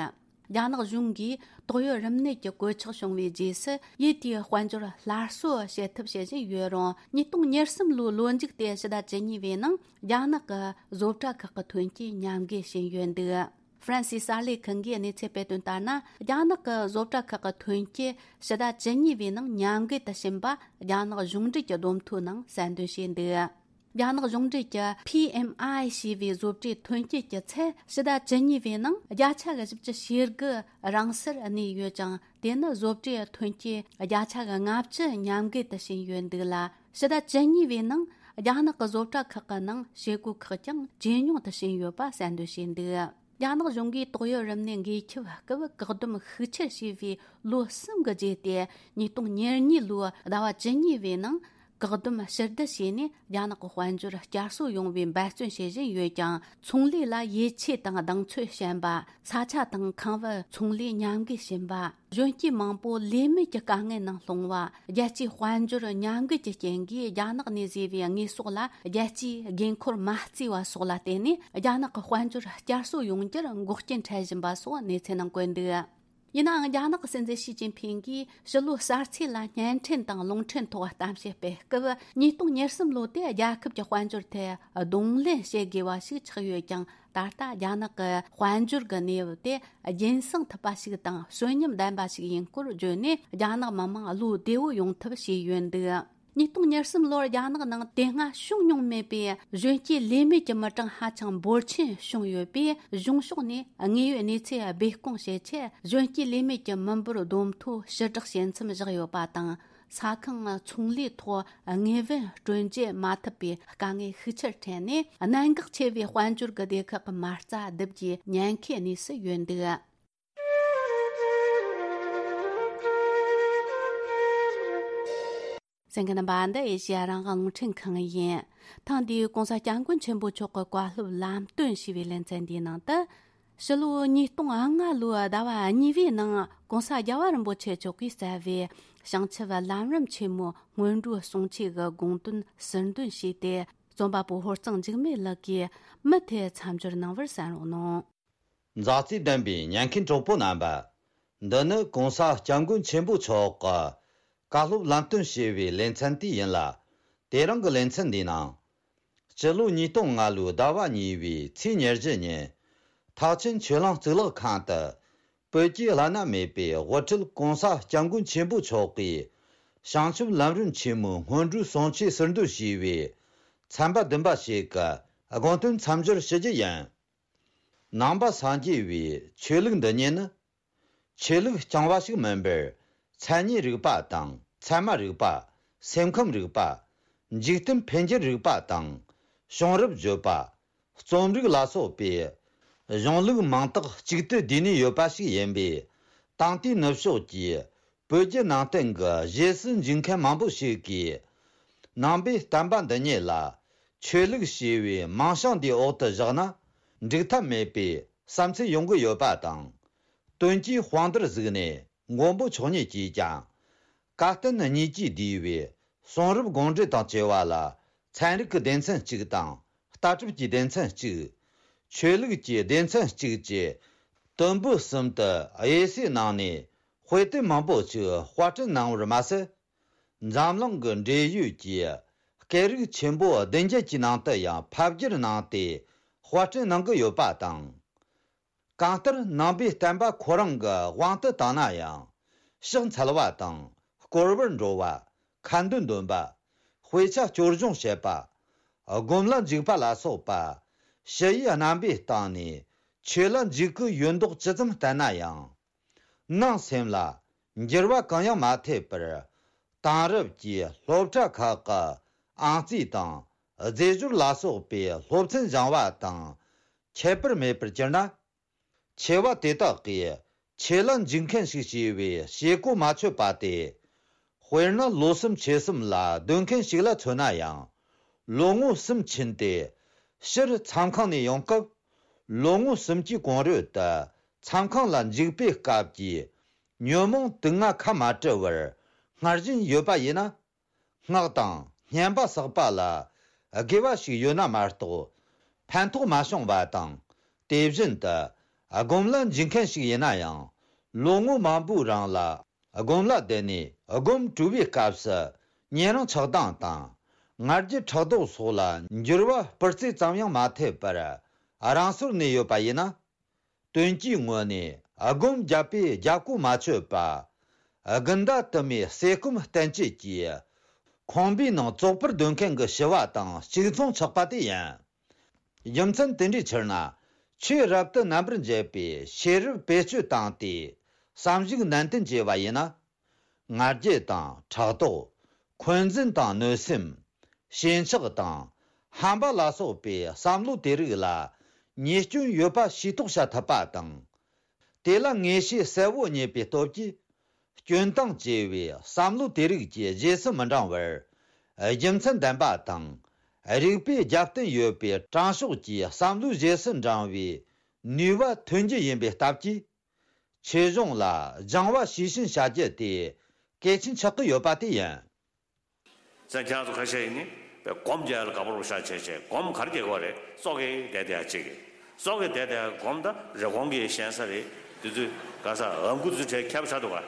རྒྱ་ནག་གཞུང་གིས་ཏོག་དབྱིབས་རིམས་ནད་ཀྱི་གོད་ཆག་བྱུང་བའི་རྗེས་སུ་ཡུལ་དེའི་དཔལ་འབྱོར་སླར་གསོ་བྱེད་ཐབས་བྱེད་བཞིན་ཡོད་རུང་། ཉིས་སྟོང་ཉེར་གསུམ་ལོའི་ལོ་མཇུག་སྟེ་ཕྱི་ཟླ་བཅུ་གཉིས་པའི་ནང་རྒྱ་ནག་གི་བཟོ་གྲྭ་ཁག་གི་ཐོན་སྐྱེད་ཉམས་རྒུད་ཕྱིན་ཡོད་འདུག་ཧྥ་རན་སིའི་གསར་ལས་ཁང་གིས་གནས་ཚུལ་སྤེལ་དོན་ལྟར་ན། རྒྱ་ནག་གི་བཟོ་གྲྭ་ཁག་གི་ཐོན་སྐྱེད་ཕྱི་ཟླ་བཅུ་གཉིས་པའི་ནང་ཉམས་རྒུད་དུ་ཕྱིན་པ་རྒྱ་ནག་གཞུང་འབྲེལ་གྱི་བསྡོམས་ཐོའི་ནང་གསལ་འདོན་བྱས་འདུག་རྒྱ་ནག་གཞུང་འབྲེལ་གྱི་P M I ཞེས་པའི་བཟོ་གྲྭའི་ཐོན་སྐྱེད་ཀྱི་ཚད་ཕྱི་ཟླ་བཅུ་གཉིས་པའི་ནང་བརྒྱ་ཆ་གི་བཞི་བཅུ་ཞེ་དགུ་རང་སར་གནས་ཡོད་ཅིང་། དེ་ནི་བཟོ་གྲྭའི་ཐོན་སྐྱེད་བརྒྱ་ཆ་གི་ལྔ་བཅུ་ཉམས་རྒུད་དུ་ཕྱིན་ཡོད་འདུག་ལ། ཕྱི་ཟླ་བཅུ་གཉིས་པའི་ནང་རྒྱ་ནག་གི་བཟོ་གྲྭ་ཁག་གི་ནང་བྱེད་སྒོ་ཁག་ཀྱང་ཇེ་ཉུང་དུ་ཕྱིན་ཡོད་པ་གསལ་འདོན་བྱས་འདུག་རྒྱ་ནག་གཞུང་གིས་ཏོག་དབྱིབས་རིམས་ནད་འགོས་ཁྱབ་སྐབས་བཀག་སྡོམ་ཤུགས་ཆེར་བྱས་པའི་ལོ་གསུམ་གྱི་རྗེས་ཏེ། ཉིས་སྟོང་ཉེར་གཉིས་ལོའི་ཟླ་བ་བཅུ་གཉིས་པའི་ནང་བཀག་སྡོམ་ཕྱིར་བསྡུ་བྱས་ནས། རྒྱ་ནག་གི་དཔལ་འབྱོར་བསྐྱར་གསོ་ཡོང་བའི་འབད་བརྩོན་བྱེད་བཞིན་ཡོད་ཀྱང་། ཚོང་ལས་ལ་ཡིད་ཆེས་དང་གདེང་ཚོད་ཞན་པ། ས་ཆ་དང་ཁང་བའི་ཚོང་ལས་ཉམས་རྒུད་ཕྱིན་པ། གཞོན་སྐྱེས་མང་པོ་ལས་མེད་ཀྱི་དཀའ་ངལ་ནང་ལྷུང་བ། རྒྱལ་སྤྱིའི་དཔལ་འབྱོར་ཉམས་རྒུད་ཀྱི་རྐྱེན་གྱིས། རྒྱ་ནག་ནས་བཟོས་པའི་དངོས་ཟོག་ལ་རྒྱལ་སྤྱིའི་དགོས་མཁོར་མ་བརྩིས་པ་སོགས་ལ་བརྟེན་ནས། རྒྱ་ནག་གི་དཔལ་འབྱོར་བསྐྱར་གསོ་ཡོང་རྒྱུར་འགོག་རྐྱེན་འཕྲད་བཞིན་པ་སོགས་གནས་ཚུལ་ནང་བཀོད་འདུག་ཡིན་ནའང་རྒྱ་ནག་གི་སྲིད་འཛིན་ཞི་ཅིན་ཕིང་གིས་ཕྱི་ལོའི་གསར་ཚེས་ལ་བརྙན་འཕྲིན་དང་རླུང་འཕྲིན་ཐོག་གཏམ་བཤད་སྤེལ་སྐབས། ཉིས་སྟོང་ཉེར་གསུམ་ལོ་དེ་རྒྱལ་ཁབ་ཀྱི་དཔལ་འབྱོར་ཐད་གདོང་ལེན་བྱེད་དགོས་པ་ཞིག་ཆགས་ཡོད་ཀྱང་། ད་ལྟ་རྒྱ་ནག་གི་དཔལ་འབྱོར་གྱི་གནས་བབ་དེ་རྒྱུན་སྲུང་ཐུབ་པ་ཞིག་དང་གསོན་ཉམས་ལྡན་པ་ཞིག་ཡིན་སྐོར་བརྗོད་ནས། རྒྱ་ནག་མི་དམངས་བློ་བདེ་བོ་ཡོང་ཐབས་བྱས་ཡོད་འདུག། ཉིས་སྟོང་ཉེར་གསུམ་ལོར་རྒྱ་ནག་ནང་དེ་སྔ་བྱུང་མྱོང་མེད་པའི་གཞོན་སྐྱེས་ལས་མེད་ཀྱི་མི་གྲངས་ཧ་ཅང་འབོར་ཆེན་བྱུང་ཡོད་པས། གཞུང་ཕྱོགས་ནས་དངོས་ཡོད་གནས་ཚུལ་སྦས་སྐུང་བྱེད་ཆེད། གཞོན་སྐྱེས་ལས་མེད་ཀྱི་མི་འབོར་བསྡོམས་ཐོ་ཕྱིར་བསྒྲགས་བྱེད་མཚམས་བཞག་ཡོད་པ་དང་། ས་ཁང་ཚོང་ལས་ཐོག་དངོས་བོན་སྤྲོད་འཇལ་མ་ཐུབ་པའི་དཀའ་ངལ་ཤུགས་ཆེར་འཕྲད་ནས། གནད་འགག་ཆེ་བའི་དཔལ་འབྱོར་གྱི་སྡེ་ཁག་གི་མ་རྩ་བསྡུ་རྒྱུའི་ཉེན་ཁའི་གནས་སུ་ཡོད་འདུག། གསན་མཁན་རྣམ་པ། འདི་ཨེ་ཤེ་ཡ་རང་དབང་རླུང་འཕྲིན་ཁང་ཡིན། ཐེངས་འདིའི་༸གོང་ས་༸སྐྱབས་མགོན་ཆེན་པོ་མཆོག་གི་བཀའ་སློབ་ལམ་སྟོན་ཞེས་པའི་ལེ་ཚན་འདིའི་ནང་དུ། ཕྱི་ལོ་ཉིས་སྟོང་ལྔ་ལོའི་ཟླ་བ་གཉིས་པའི་ནང་༸གོང་ས་རྒྱལ་བ་རིན་པོ་ཆེ་མཆོག་གིས་གསལ་བའི་བྱང་ཆུབ་ལམ་རིམ་ཆེན་མོའི་སྔོན་འགྲོའི་གསུང་ཆོས་ཀྱི་དགོངས་དོན་ཟུར་འདོན་བྱས་ཏེ། རྩོམ་པ་པོ་ཧོར་གཙང་འཇིགས་མེད་ལགས་ཀྱིས་མུ་མཐུད་མཚམས་སྦྱོར་གནང་བར་གསན་རོགས་གནང་། མཛའ་བརྩེ་ལྡན་པའི་ཉན་མཁན་གྲོགས་པོ་རྣམ་པ། འདི་ནི་༸གོང་ས་༸སྐྱབས་མགོན་ཆེན་པོ་མཆོག་གི་བཀའ་སློབ་ལམ་སྟོན་ཞེས་པའི་ལེ་ཚན་དེ་ཡིན་ལ། དེ་རིང་གི་ལེ་ཚན་འདིའི་ནང་། སྤྱི་ལོ་ཉིས་སྟོང་ལྔ་ལོའི་ཟླ་བ་གཉིས་པའི་ཚེས་ཉེར་བཞི་ཉིན། ཐེག་ཆེན་ཆོས་གླིང་གཙུག་ལག་ཁང་དུ། བོད་ཀྱི་བླ་ན་མེད་པའི་དབུ་ཁྲིད་༸གོང་ས་༸སྐྱབས་མགོན་ཆེན་པོ་མཆོག་གིས། བྱང་ཆུབ་ལམ་རིམ་ཆེན་མོའི་སྔོན་འགྲོའི་གསུང་ཆོས་ཟུར་འདོན་ཞེས་པའི་ཚན་པ་བདུན་པ་ཞིག་གི་དགོངས་དོན་མཚམས་སྦྱོར་ཞུ་རྒྱུ་ཡིན། ནང་པ་སངས་རྒྱས་པའི་ཆོས་ལུགས་འདི་ཉིད་ནི། ཆོས་ལུགས་རྐྱང་བ་ཞིག་མིན་པར། མཚན་ཉིད་རིག་པ་དང་ཚད་མ་རིག་པ། སེམས་ཁམས་རིག་པ། འཇིག་རྟེན་འཕེལ་འགྱུར་རིག་པ་དང་། བྱུང་རབས་བརྗོད་པ། རྩོམ་རིག་ལ་སོགས་པའི་གཞུང་ལུགས་མང་དག་གཅིག་ཏུ་བསྡུས་ནས་ཡོད་པ་ཞིག་ཡིན་པས། དེང་དུས་ནུབ་ཕྱོགས་ཀྱི་བོད་བརྒྱུད་ནང་བསྟན་གྱི་རྗེས་སུ་འཇུག་མཁན་མང་པོ་ཞིག་གིས། ནང་པའི་བསྟན་པ་འདི་ཉིད་ལ་ཆོས་ལུགས་ཞེས་པའི་མིང་བྱང་འདིའི་འོག་ཏུ་བཞག་ན་འགྲིག་ཐབས་མེད་པའི་བསམ་ཚུལ་ཡོང་གི་ཡོད་པ་དང་། དོན་གྱི་དཔང་རྟགས་གཟིགས་ནས་མགོན་པོ་མཆོག་ཉིད་ཀྱིས་ཀྱང་། བཀའ་བསྟན་གཉིས་ཀྱིས་བསྡུས་པའི་གསུང་རབ་དགོངས་འགྲེལ་དང་བཅས་པ་ལ། ཚན་རིག་གི་སྡེ་ཚན་གཅིག་དང་། ལྟ་གྲུབ་ཀྱི་སྡེ་ཚན་གཅིག། ཆོས་ལུགས་ཀྱི་སྡེ་ཚན་གཅིག་བཅས་དུམ་བུ་གསུམ་དུ་དབྱེ་གསོས་གནང་ནས། དཔེ་དེབ་མང་པོ་ཞིག་དཔར་སྐྲུན་གནང་བར་མ་ཟད། འཛམ་གླིང་གི་འབྲེལ་ཡོད་ཀྱི་སྐད་རིགས་ཆེན་པོ་བདུན་བརྒྱད་ཀྱི་ནང་དུ་ཡང་ཕབ་བསྒྱུར་གནང་སྟེ། དཔར་སྐྲུན་གནང་གི་ཡོད་པ་དང་། གང་ལྟར་ནང་པའི་བསྟན་པ་ཁོ་རང་གི་དབང་དུ་བཏང་ན་ཡང་། ཕྱག་འཚལ་བ་དང་། བསྐོར་བར་འགྲོ་བ། ཁ་འདོན་འདོན་པ། དཔེ་ཆ་སྐྱོར་སྦྱོང་བྱེད་པ། སྒོམ་ལ་འཇུག་པ་ལ་སོགས་པ། ཞི་བའི་རྣམ་པའི་སྟེང་ནས་ཆོས་ལ་འཇུག་གི་ཡོད་མདོག་ཇི་ཙམ་བསྟན་ན་ཡང་། ནང་སེམས་ལ་འགྱུར་བ་གང་ཡང་མ་ཐེབས་པར། དེང་རབས་ཀྱི་སློབ་གྲྭ་ཁག་གི་ཨང་རྩིས་དང་རྫས་སྦྱོར་ལ་སོགས་པའི་སློབ་ཚན་སྦྱང་བ་དང་ཁྱད་པར་མེད་པར་གྱུར་ན། ཆེ་བ་དེ་དག་གིས་ཆོས་ལ་འཇུག་མཁན་ཞིག་བྱས་པའི་བྱེད་སྒོ་མ་ཆོད་པ་སྟེ། དཔེར་ན་ལོ་གསུམ་ཕྱེད་གསུམ་ལ་སྡོད་མཁན་ཞིག་ལ་མཚོན་ན་ཡང་། ལོ་ངོ་གསུམ་ཕྱིན་ཏེ་ཕྱིར་མཚམས་ཁང་ནས་ཡོང་སྐབས། ལོ་ངོ་གསུམ་གྱི་གོང་རོལ་དུ་མཚམས་ཁང་ལ་འཇུག་པའི་སྐབས་ཀྱི་ཉོན་མོངས་དུག་ལྔ་ཁ་མ་བྲལ་བར་སྔར་བཞིན་ཡོད་པ་ཡིན་ན། སྔགས་དང་བསྙེན་པ་བསགས་པ་ལ་དགེ་བ་ཞིག་ཡོད་ན་མ་གཏོགས། ཕན་ཐོགས་མ་བྱུང་བ་དང་། དེ་བཞིན་དུ་སྒོམ་ལ་འཇུག་མཁན་ཞིག་ཡིན་ན་ཡང་། ལོ་ངོ་མང་པོའི་རིང་ལ་སྒོམ་ལ་བསྡད་ནས་སྒོམ་གྲོལ་བའི་སྐབས་སུ་ཉན་རང་ཆགས་སྡང་དང་། ང་རྒྱལ་ཕྲག་དོག་སོགས་ལ་འགྱུར་བ་སྤུ་རྩེ་ཙམ་ཡང་མ་ཐེབས་པར་རང་སོར་གནས་ཡོད་པ་ཡིན་ན། དོན་གྱི་ངོས་ནས་སྒོམ་བརྒྱབ་པས་རྒྱབ་ཁུག་མ་ཆོད་པ། དགུན་ཟླ་དུ་མའི་ཟས་སྐོམ་བསྟེན་བཅོས་ཀྱིས་ཁང་པའི་ནང་བཙོག་པར་སྡོད་མཁན་གྱི་ཞི་བ་དང་གཅིག་མཚུངས་ཆགས་པ་དེ་ཡིན། རྒྱུ་མཚན་དེ་འདྲའི་ཕྱིར་ན། ཆོས་རབ་ཏུ་རྣམ་པར་འབྱེད་པའི་ཤེས་རབ་བེད་སྤྱོད་བཏང་སྟེ་བསམ་གཞིག་ནན་ཏན་བྱས་པ་ཡིན་ན། ང་རྒྱལ་དང་ཕྲག་དོག་འཁོན་འཛིན་དང་གནོད་སེམས། ཞེན་ཆགས་དང་ཧམ་པ་ལ་སོགས་པའི་བསམ་བློ་དེ་རིགས་ལ་ཉེས་སྐྱོན་ཡོད་པ་ཤེས་རྟོགས་བྱ་ཐུབ་པ་དང་། དེ་ལ་ངེས་ཤེས་གསལ་བོ་རྙེད་པའི་སྟོབས་ཀྱིས། སྐྱོན་དང་བཅས་པའི་བསམ་བློ་དེ་རིགས་ཀྱི་རྗེས་སུ་མི་འབྲང་བར། རྒྱུ་མཚན་ལྡན་པ་དང་། རིགས་པས་རྒྱབ་རྟེན་ཡོད་པའི་དྲང་ཕྱོགས་ཀྱི་བསམ་བློའི་རྗེས་སུ་འབྲང་བའི་ནུས་པ་ཐོན་རྒྱུ་ཡིན་པའི་སྟབས་ཀྱིས། ཆོས་གཞུང་ལ་སྦྱང་བ་ཤེས་བཞིན་བྱ་རྒྱུ་དེ་གལ་ཆེན་ཆགས་ཀྱི་ཡོད་པ་དེ་ཡིན། ཙང་ཁྱེད་རང་ཚོ་ཁ་ཤས་ཡིན་ནི་སྒོམ་རྒྱག་ཡ་ལ་དགའ་པོ་རུ་ཤ་ཆེ་ཆེ་སྒོམ་གར་རྒྱག་གི་རེད། ཙོག་གེ་བསྡད་བསྡད་ཡ་གཅིག་གི་ཙོག་གེ་བསྡད་བསྡད་ཡ་སྒོམ་ད་རི་གོང་གི་ཞེན་ས་རེད། དེ་ཚོས་ག་ས་ཨ་ཁུ་ཚོའི་གྲས་ཁྱབ་ཆགས་འདུག་ག་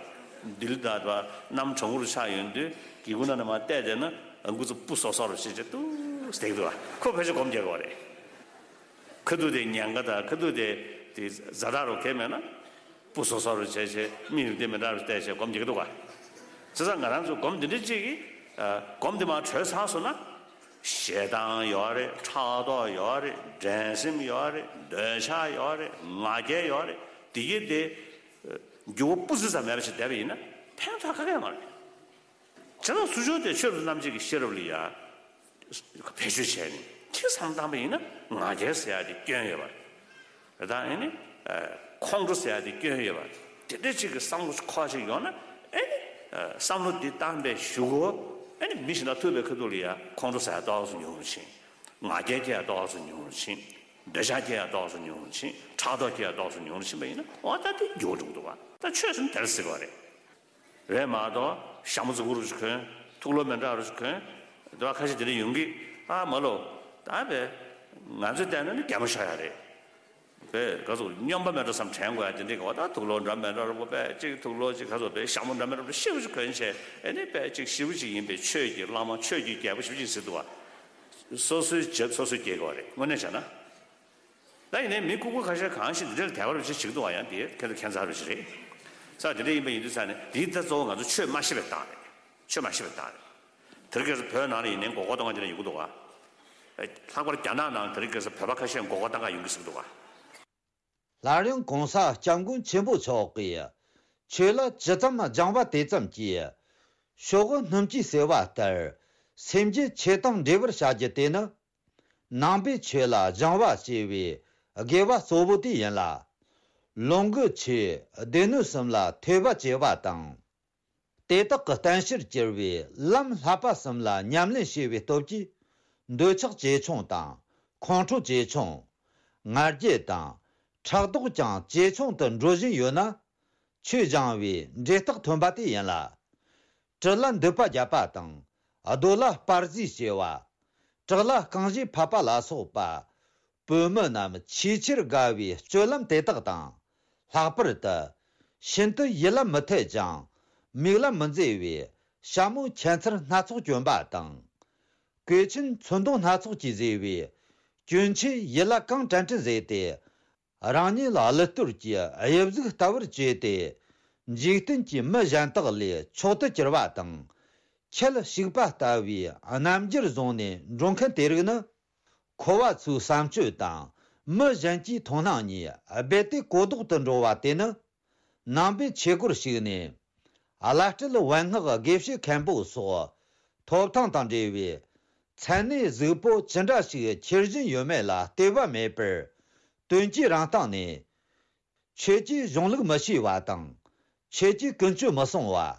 འདི་ལ་ད་ད་གནམ་གྲང་མོ་རུ་ཆགས་ཡོང་དུས་སྒེའུ་ཁུང་ནང་ནས་མར་བལྟས་བསྡད་ན་ཨ་ཁུ་ཚོ་སྤུ་སོ་སོ་རུ་བྱེད་བྱེད་ཏུ་བསྡད་འདུག་ག་ཁོ་ཕལ་ཆེར་སྒོམ་རྒྱག་གི་བ་རེད། ཁ་ཐུག་དེ་ཉེན་ཁ་དང་ཁ་ཐུག་དེ་དེ་ཛ་དྲག་རུ་གས་མེད་ན་སྤུ་སོ་སོ་རུ་བྱས་བྱས་མིག་རིག་དེ་མི་འདྲ་རུ་བལྟས་བྱས་སྒོམ་རྒྱག་གི་འདུག་ག་བྱས་ཙང་ང་རང་ཚོ་སྒོམ་འདི་འདྲ་ཅིག་གིས་སྒོམ་འདི་མར་གྲོལ་ཚར་སོང་ན། ཞེ་སྡང་ཡོད་རེད། ཕྲག་དོག་ཡོད་རེད། འགྲན་སེམས་ཡོད་རེད། འདོད་ཆགས་ཡོད་རེད། ང་རྒྱལ་ཡོད་རེད། དེ་གི་དེ་འགྱུར་བ་སྤུ་ཙམ་ཙམ་མེད་པ་ཞིག་བསྡད་པ་ཡིན་ན་ཕན་ཐོགས་ག་གེ་ཡོད་མ་རེད། བྱས་ཙང་ཚུར་ཕྱོགས་དེ་ཆོས་རབ་ཏུ་རྣམ་འབྱེད་ཀྱི་ཤེས་རབ་ལ་ཡ་བེད་སྤྱོད་བྱས་ནས་ཅིག་བསམ་བློ་བཏང་པ་ཡིན་ན་ང་རྒྱལ་ཟེར་ཡ་དེ་སྐྱོན་ཡོད་པ་རེད། ད་ཨེ་ནི་ཁོང་ཁྲོ་ཟེར་ཡ་དེ་སྐྱོན་ཡོད་པ་དེ་འདྲ་ཅིག་གི་བསམ་བློ་ཁོག་ཅིག་ཡོང་ན་ཨེ་ནི་བསམ་བློ་འདི་བཏང་པའི་གཞུག་གུ་ཨེ་ནི་མི་གཞན་དང་ཐུག་པའི་ཁ་ཐུག་ལ་ཡ་ཁོང་ཁྲོ་ཟ་ཡ་ཏོག་ཙམ་ཉུང་རུ་ཕྱིན། ང་རྒྱལ་སྐྱེ་ཡ་ཏོག་ཙམ་ཉུང་རུ་ཕྱིན། འདོད་ཆགས་སྐྱེ་ཡ་ཏོག་ཙམ་ཉུང་རུ་ཕྱིན། ཕྲག་དོག་སྐྱེ་ཡ་ཏོག་ཙམ་ཉུང་རུ་ཕྱིན་པ་ཡིན་ན་འོ་ད་དེ་འགྱུར་བ་འགྲོ་གི་འདུག་བ། ད་ཆོས་ཟེར་ན་དེར་ཟེར་གི་བ་རེད། རེད་མ་གཏོགས་ཞྭ་མོ་རྫིག་པོ་རུ་ཞིག་གོན། ཐུགས་ལོ་མི་འདྲ་རུ་ཞིག་གོན། འདི་བ་ཁ་ཤས་དེ་འདྲ་ཡོང་གི། ཨ་མ་ལོ། ད་བས་ང་ཚོས་བལྟས་ན་ནི་རྒྱ་མོ་ཤོར་ཡ་རེད། བས་ག་ཚོད་སྨྱོན་པ་མེད་འགྲོ་བསམ་དྲན་དགོས་ཡ་དེ་འདྲ་གི་བ། ད་ཐུགས་ལོ་འདྲ་མི་འདྲ་རུ་པོ་བས་གཅིག་ཐུགས་ལོ་གཅིག་ག་ཚོད་བས་ཞྭ་མོ་འདྲ་མི་འདྲ་རུ་ཤེས་པོ་ཞིག་གོན་བྱས་ཨེ་ནི་བས་གཅིག་ཞེ་པོ་ཅིག་ཡིན་པས་ཆོས་ཀྱི་བླ་མ་ཆོས་ཀྱི་རྒྱལ་པོ་ཞེ་པོ་ཅིག་ཟེར་འདུག་བ། སོ་སོའི་རྒྱབ་སོ་སོས་སྐྱེལ་དགོས་པ་རེད་དངོས་གནས་བྱས་ན། ད་ཡིན་ནའི་མི་ལྐུགས་པ་ཁ་ཤས་གང་ཞིག་འདི་འདྲ་ལ་དད་པ་རུ་ཅིག་བྱེད་ཀྱི་འདུག་བ། ཡང་དེ་ཁྱེད་ཚོ་ཁྱད་མཚར་རུ་ཞིག་རེད། ས་དེ་འདྲ་ཡིན་པ་ཡིན་དུས་ས་ནས་འདི་ད་གཙོ་བོ་ང་ཚོ་ཆོས་མ་ཤེས་པའི་རྟགས་རེད། ཆོས་མ་ཤེས་པའི་རྟགས་རེད། དེ་རིང་ཁ་སང་བོད་ནང་ལ་ཡིན་ནའི་མགོ་སྐོར་གཏོང་མཁན་དེ་འདྲ་ཡོང་གི་འདུག་བ། ལྷག་པར་རྒྱ་ནག་ནང་དེ་རིང་ཁ་སང་བོད་པ་ཁ་ཤས་མགོ་སྐོར་གཏོང་ག་ཡོང་གི་ཟེར་གི་འདུག་བ། སླར་ཡང་གོང་ས་སྐྱབས་མགོན་ཆེན་པོ་མཆོག་གིས་ཆོས་ལ་ཇི་ཙམ་སྦྱང་བ་དེ་ཙམ་གྱིས་ཕྱོགས་སྣུམ་གྱིས་བསྲེ་བ་ལྟར་སེམས་རྒྱུད་ཆོས་དང་འབྲེལ་བར་བྱ་རྒྱུ་དེ་ནི་ནང་པའི་ཆོས་ལ་སྦྱང་བ་ཞེས་པའི་དགེ་བ་གཙོ་བོ་དེ་ཡིན་ལ། ལོངས་སྐུ་ཆོས་སྡེ་སྣོད་གསུམ་ལ་ཐོས་པ་བྱེད་པ་དང་། དེ་དག་གི་བསྟན་བྱར་གྱུར་པའི་ལམ་བསླབ་པ་གསུམ་ལ་ཉམས་ལེན་བྱས་པའི་སྟོབས་ཀྱིས་འདོད་ཆགས་ཇེ་ཆུང་དང་ཁོང་ཁྲོ་ཇེ་ཆུང་། ང་རྒྱལ་དང་ཕྲག་དོག་ཀྱང་ཇེ་ཆུང་དུ་འགྲོ་བཞིན་ཡོད་ན། ཆོས་སྦྱང་བའི་འབྲས་རྟགས་ཐོན་པ་དེ་ཡིན་ལ། དྲི་ལ་མདུད་པ་བརྒྱབ་པ་དང་། རྡོ་ལ་སྤར་གཟིགས་བྱས་པ། བྲག་ལ་རྐང་བཞེས་ཕབ་པ་ལ་སོགས་པ། བོད་མི་རྣམས་ཆེས་ཆེར་དགའ་བའི་སྤྱོད་ལམ་དེ་དག་དང་། ལྷག་པར་དུ་ཤིན་ཏུ་ཡིད་ལ་མི་འཐད་ཅིང་མིག་ལ་མི་མཛེས་པའི་ཞྭ་མོ་ཁྱད་མཚར་སྣ་ཚོགས་གྱོན་པ་དང་། གོས་ཆེན་ཚོན་མདོག་སྣ་ཚོགས་ཀྱིས་མཛེས་པའི་གྱོན་ཆས་ཡིད་ལ་གང་དྲན་དྲན་བཟོས་ཏེ། རང་ཉིད་ལ་གླུད་གཏོར་གྱི་དབྱིབས་གཟུགས་ལྟ་བུར་བྱས་ཏེ། འཇིག་རྟེན་གྱི་མི་གཞན་དག་ལས་མཆོག་ཏུ་གྱུར་པ་དང་། ཁྱེད་ཞིག་པ་ལྟ་བུའི་རྣམ་འགྱུར་བཟུང་ནས་འགྲོ་མཁན་དེ་རིགས་ནི། འཁོར་བ་ཚོའི་བསམ་སྤྱོད་དང་མི་གཞན་གྱི་མཐོང་སྣང་གཉིས་རྦད་དེ་གོ་ལྡོག་ཏུ་འགྲོ་བ་དེ་ནི། ནང་པའི་ཆོས་སྒོར་ཞུགས་ནས། བླ་སྤྲུལ་བན་སྔགས་དགེ་བཤེས་མཁན་པོ་སོགས་ཐོབ་ཐང་དང་འབྲེལ་བའི་མཚན་གནས་གཟུགས་པོ་ཅི་འདྲ་ཞིག་འཁྱེར་བཞིན་ཡོད་མེད་ལ་ལྟོས་པ་མེད་པར། དོན་གྱི་རང་སྟེང་ནས། ཆོས་ཀྱི་གཞུང་ལུགས་མི་ཤེས་པ་དང་། ཆོས་ཀྱི་ཀུན་སྤྱོད་མི་སྲུང་བ།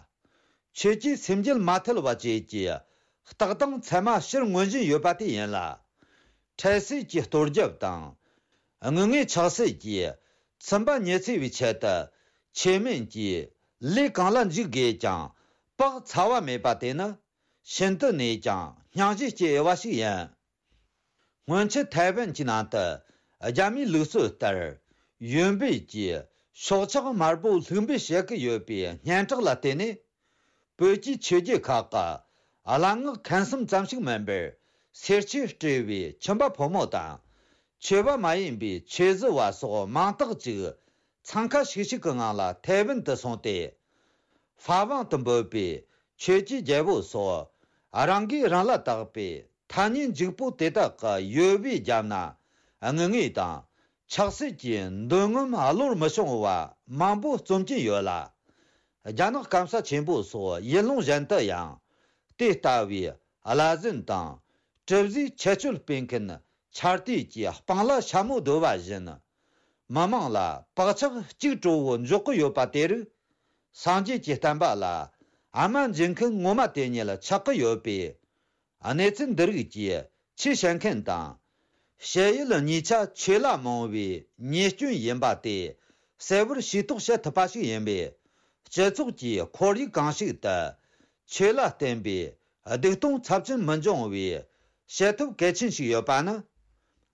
ཆོས་ཀྱི་སེམས་རྒྱུད་མ་ཐུལ་བ་བཅས་ཀྱི་རྟགས་དང་མཚན་མ་ཕྱིར་མངོན་བཞིན་ཡོད་པ་དེ་ཡིན་ལ། འཕྲལ་སེལ་གྱི་གཏོར་རྒྱབ་དང་། དངུལ་དངོས་ཆག་སྲེད་ཀྱིས་ཚིམ་པ་ཉི་ཚེ་བའི་ཆེད་དུ་ཆོས་མིན་གྱི་ལས་གང་ལ་འཇུག་དགོས་ཀྱང་བག་ཚ་བ་མེད་པ་དེ་ནི་ཤིན་ཏུ་ནས་ཀྱང་སྙིང་རྗེ་སྐྱེ་འོས་པ་ཞིག་ཡིན། སྔོན་ཆད་ཐའེ་ཝན་གྱི་ནང་དུ་རྒྱ་མིའི་ལུགས་སྲོལ་ལྟར་ཡོན་པོས་ཀྱིས་སྲོག་ཆགས་དམར་པོ་ལྷུག་འབུད་བྱེད་ཀྱི་ཡོད་པའི་སྙན་གྲགས་ལ་བརྟེན་ནས། བོད་ཀྱི་ཆོས་བརྒྱུད་ཁག་གི་གླ་རྔོག་མཁན་གསུམ་ཙམ་ཞིག་མིན་པར་སེར་ཆོས་སྤྲས་པའི་ཁྱིམ་པ་ཕོ་མོ་དང་། ཆོས་པ་མ་ཡིན་པའི་ཆོས་བཟི་བ་སོགས་མང་དག་ཅིག་འཚང་ཁ་ཤིག་ཤིག་གི་ངང་ལ་ཐའེ་ཝན་དུ་སོང་སྟེ། ཧྥ་ཝང་དུ་འབོད་པའི་ཆོས་ཀྱི་རྒྱལ་པོ་སོགས་རང་གིས་རང་ལ་བཏགས་པའི་ཐ་སྙད་འཇིགས་པོ་དེ་དག་གི་ཡོལ་བའི་རྒྱབ་ན་དངུལ་དངོས་དང་ཆག་སྲེད་ཀྱི་འདོད་རྔམ་བློར་མི་ཤོང་བ་མང་པོ་རྩོམ་གྱིན་ཡོད་ལ། རྒྱ་ནག་སྐམ་ས་ཆེན་པོ་སོགས་ཡུལ་ལུང་གཞན་དུ་ཡང་དེ་ལྟ་བུའི་བླ་གཟན་དང་གྲུ་བཟོའི་ཁྱད་ཆོས་སྤེལ་མཁན་ཆར་དུས་ཀྱི་སྤང་ལ་ཤ་མོ་བརྡོལ་བ་བཞིན། མི་མང་ལ་བག་ཆགས་གཅིག་གྲོགས་པོ་འཇོག་གི་ཡོད་པ་དེ་རིགས། སངས་རྒྱས་ཀྱི་བསྟན་པ་ལ་ཨ་མ་འཇིགས་མཁན་ངོ་མ་དེ་ཉིད་ཆགས་ཀྱི་ཡོད་པས། གནས་ཚུལ་འདི་རིགས་ཀྱིས་ཆོས་བྱེད་མཁན་དང་། བཤད་ཡུལ་གཉིས་ཆ་ཆོས་ལ་རྨོངས་པའི་ཉེས་སྐྱོན་ཡིན་པ་དེ་གསལ་བོར་ཤེས་རྟོགས་བྱེད་ཐུབ་པ་ཞིག་ཡིན་པས། སྤྱི་ཚོགས་ཀྱི་ཁོར་ཡུག་གང་ཞིག་ཏུ་ཆོས་ལ་བརྟེན་པའི་སྡིག་ལྟུང་ཚབས་ཆེན་མི་འབྱུང་བའི་བྱེད་ཐབས་གལ་ཆེན་ཞིག་ཡོད་པ་ནི།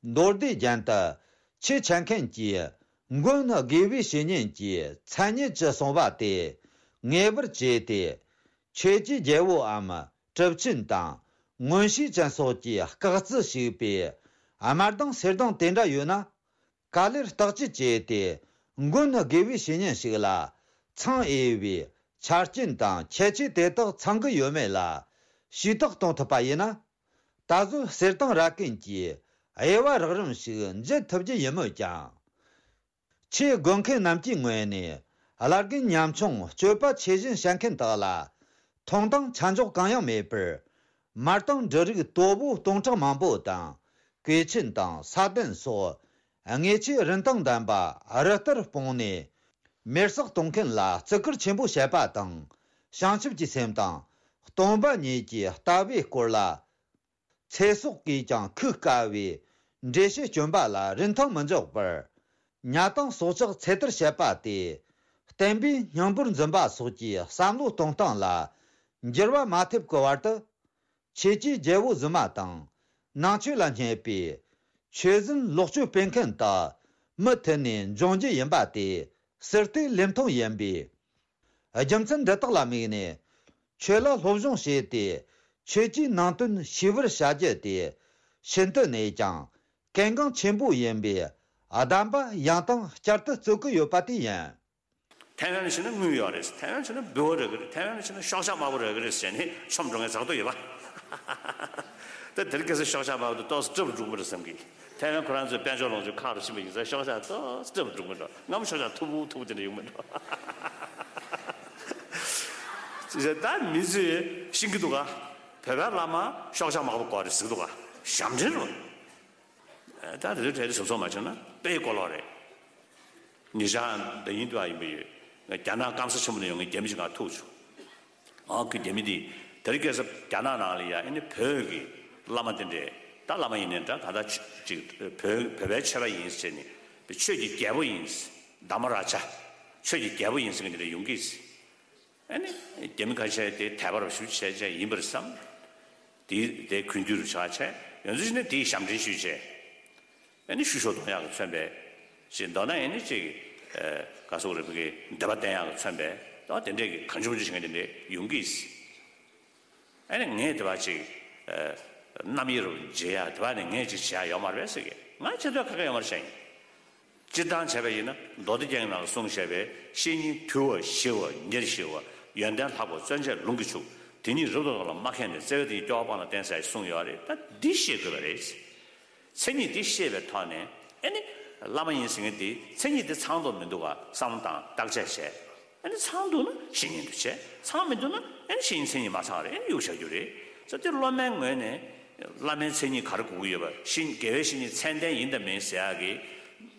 མདོ་སྡེ་རྒྱན་དུ་ཆོས་བྱེད་མཁན་གྱིས་ མགོན་དགེ་བའི་བཤེས་གཉེན་གྱི་མཚན་ཉིད་ཀྱི་གསུང་བ་དེ་ངེས་པར་བྱས་ཏེ། ཆོས་ཀྱི་རྒྱལ་པོའམ་གྲུབ་ཆེན་དང་མངོན་ཤེས་ཅན་སོགས་ཀྱིས་སྐག་རྩིས་ཞུས་པའི་དམར་མདངས་སེར་མདངས་དེ་འདྲ་ཡོད་ན། ག་ལེར་བརྟག་དཔྱད་བྱས་ཏེ། མགོན་དགེ་བའི་བཤེས་གཉེན་ཞིག་ལ་འཚང་འོས་པའི་ཆ་རྐྱེན་དང་ཁྱད་ཆོས་དེ་དག་ཚང་གི་ཡོད་མེད་ལ་ཞུས་དག་གཏོང་ཐུབ་པ་ཡིན་ན། ད་གཟོད་གསེར་ཐང་ར་ཀན་གྱི་དབྱེ་བ་རགས་རིམ་ཞིག་འབྱེད་ཐུབ་རྒྱུ་ཡིན་མོད་ཀྱང་། ཆེས་དགོས་མཁན་རྣམས་ཀྱི་ངོས་ནས་བླ་རྒན་ཉམ་ཆུང་སྤྱོད་པ་ཆེ་ཞན་བཤད་མཁན་དག་ལ་མཐོང་སྟངས་ཆ་འཇོག་གང་ཡང་མེད་པར། མར་དང་འབྲུ་རིགས་དོ་པོ་སྟོང་ཕྲག་མང་པོ་དང་། གོས་ཆེན་དང་ས་གདན་སོགས་དངོས་ཆས་རིན་ཐང་ལྡན་པ་རི་ལྟར་སྤུངས་ནས། མེར་བསྲེགས་གཏོང་མཁན་ལ་བརྩི་བཀུར་ཆེན་པོ་བྱེད་པ་དང་། བྱང་ཆུབ་ཀྱི་སེམས་དང་སྟོང་པ་ཉིད་ཀྱི་ལྟ་བའི་སྐོར་ལ། ཚེ་སྲོག་གིས་ཀྱང་ཁུག་དཀའ་བའི་འགྲེལ་བཤད་སྐྱོན་པ་ལ་རིན་ཐང་མི་འཇོག་པར། ཉ་དང་སྲོག་ཆགས་ཚེ་ཐར་བྱེད་པ་དེ། བསྟན་པའི་སྙིང་པོར་འཛིན་པ་སོགས་ཀྱི་བསམ་བློ་གཏོང་སྟངས་ལ་འགྱུར་བ་མ་ཐེབས་ཀྱི་བར་དུ། ཆོས་ཀྱི་རྒྱལ་པོ་རྫུན་མ་དང་ནང་ཆོས་ལ་བསྙད་པའི་ཆོས་ཟན་ལོག་སྤྱོད་སྤེལ་མཁན་དག་མུ་མཐུད་ནས་འབྱུང་རྒྱུ་ཡིན་པ་དེ་ཟུར་བལྟས་ལེབ་མཐོང་ཡིན་པས། རྒྱུ་མཚན་འདི་དག་ལ་དམིགས་ནས་ཆོས་ལ་སློབ་སྦྱོང་བྱས་ཏེ་ཆོས་ཀྱི་ནང་དོན་ཤེས་པར་བྱ་རྒྱུ་དེ་ཤིན་ཏུ་ནས་ཀྱང་གལ་འགངས་ཆེན་པོ་ཡིན་པས། གདམས་པ་ཡང་དང་བསྐྱར་དུ་རྩོད་ཀྱི་ཡོད་པ་དེ་ཡིན། ཐའེ་ཝན་ཕྱིན་ན་དངུལ་ཡོད་རེད། ཐའེ་ཝན་ཕྱིན་ན་འབུལ་བ་རག་གི་རེད། ཐའེ་ཝན་ཕྱིན་ན་ཤོག་ཆག་དམར་པོ་རག་གི་རེད་ཟེར་ནས་མཆོང་འགྲོ་མཁན་ཚ་ཐོ་ཡོད་པ། ད་དེ་རིང་ཁ་སང་ཤོག་ཆག་དམར་པོ་དེ་ཏོག་ཙམ་སྐྲག་པོ་འགྲོ་གི་མ་རེད་བསམ་གི། ཐའེ་ཝན་ཁོ་རང་ཚོའི་དཔལ་འབྱོར་ལོངས་སྤྱོད་ཁག་རུ་ཕྱིན་པ་ཡིན་ཙང་ཤོག་ཆག་ཏོག་ཙམ་སྐྲག་པོ་འགྲོ། སྔ་མོ་ཤོག་ཆག་མཐུག་པོ་མཐུག་པོ་དེ་འདྲ་ཡོང་མི་འགྲོ། ཅི་བྱས་ད་མི་ཚོས་ཤེས་ཀྱི་འདུག་ག། བོད་པའི་བླ་མ་ཤོག་ཆག་དམར་པོ་དགོས་རེད་ཟེར་གྱི་འདུག་ག། ཞབས་འདྲེན་རེད། ད་དེ་ཚོའི་གྲས་དེ་ཟུར་ཚོགས་མ་བྱུང་ན་དཔེ་གོ་ལོག་རེད། ཉེ་ཆར་འདི་ཡིན་དུ་ཡིན་པ་ཡོད། རྒྱ་ནག་སྐམ་ས་ཆེན་པོ་ནས་ཡོང་མཁན་རྒྱ་མི་ཞིག་ང་ཐུག་བྱུང་། ཨང་ཁུ་རྒྱ་མི་འདི་དེ་རིང་ཁ་སང་རྒྱ་ནག་ནང་ལ་ཡ་ཨ་ནི་བོད་ཀྱི་བླ་མ་དེ་འདྲས། ད་བླ་མ་ཡིན་ནའི་འདྲ། གང་ལྟར་ཆོས་ཅིག་བོད་བོད་པའི་ཆོས་པ་ཡིན་ཟེར་ནས་ཆོས་ཀྱི་རྒྱལ་པོ་ཡིན། དྷརྨ་རཱ་ཇ། ཆོས་ཀྱི་རྒྱལ་པོ་ཡིན་ཟེར་མཁན་དེ་འདྲས་ཡོང་གི། ཨ་ནི་རྒྱ་མི་ཁ་ཤས་དེ་དད་པ་རུ་ཞུ་བྱས་བྱས་ཡིན་པར་བསམ། དེ་དེ་གུས་འདུད་རུ་ཆགས་བྱས་ཡོང་ཚུལ་ཞིག་ནི་དེའི་ཞབས་འདྲེན་ཞུས་བྱས། ཨ་ནི་ཤུ་ཤོ་གཏོང་ཡག་གི་མཚོན་པའི་ཞེས་མདོར་ན་ཨ་ནི་ཅིག་ག་སོག་རེ་བུ་གི་འདོད་པ་བསྟན་ཡག་གི་མཚོན་པའི་ད་དེ་འདྲས་ཀྱི་གང་བྱུང་བྱུང་ཞིག་དེ་འདྲས་ཡོང་གི། ཨ་ནི་ངས་དེ་བ་ཅིག་རྣམ་དབྱེ་རུ་འབྱེད་ཡག་དེ་བ་ནི་ངས་ཅིག་བྱེད་ཡག་ཡོད་མ་རེད་ཟེར་གི། ང་བྱེད་འདོད་ཁ་ཁ་ཡོད་མ་རེད་བཤད་ཡིན། སྤྱིར་བཏང་བྱས་པ་ཡིན་ན་མདོ་སྡེ་རྒྱན་གྱི་ནང་གསུངས་བཞག་པའི་བཤེས་གཉེན་དུལ་བ་ཞི་བ་ཉེར་ཞི་བ་ཡོན་ཏན་ལྷག་པ་བརྩོན་བཅས་ལུང་གིས་ཕྱུག་དེ་ཉིད་རབ་ཏུ་བདག་ལ་མ་མཁས་ནས། བརྩེ་བས་དེ་ཉིད་སྐྱོ་བ་སྤངས་ལ་བསྟེན་ཟེར་གསུངས་ཡོད་རེད། ད་འདི་ཤེས་དགོས་པ་རེད། མཚན་ཉིད་འདི་ཤེས་པའི་ཐོག་ནས་ཨ་ནི་བླ་མ་ཡིན་ཟེར་མཁན་འདི་མཚན་ཉིད་འདི་ཚང་འདུག་མི་འདུག་ག་བསམ་བློ་བཏང་བརྟག་དཔྱད་བྱས། ཨ་ནི་ཚང་འདུག་ན་བཤེས་གཉེན་དུ་བྱས། ཚང་མི་འདུག་ན་ཨ་ནི་བཤེས་གཉེན་མཚན་ཉིད་མ་ཚང་རེད། ཨ་ནི་གཡུག་བཞག་རྒྱུ་རེད། ས་དེ་སློབ་མའི་ངོས་ནས་བླ་མའི་མཚན་ཉིད་ག་རེ་དགོས་ཀྱི་ཡོད་པ། བཤེས་དགེ་བའི་བཤེས་གཉེན་མཚན་ལྡན་ཡིན་དང་མིན་ཟེར་ཡག་གི་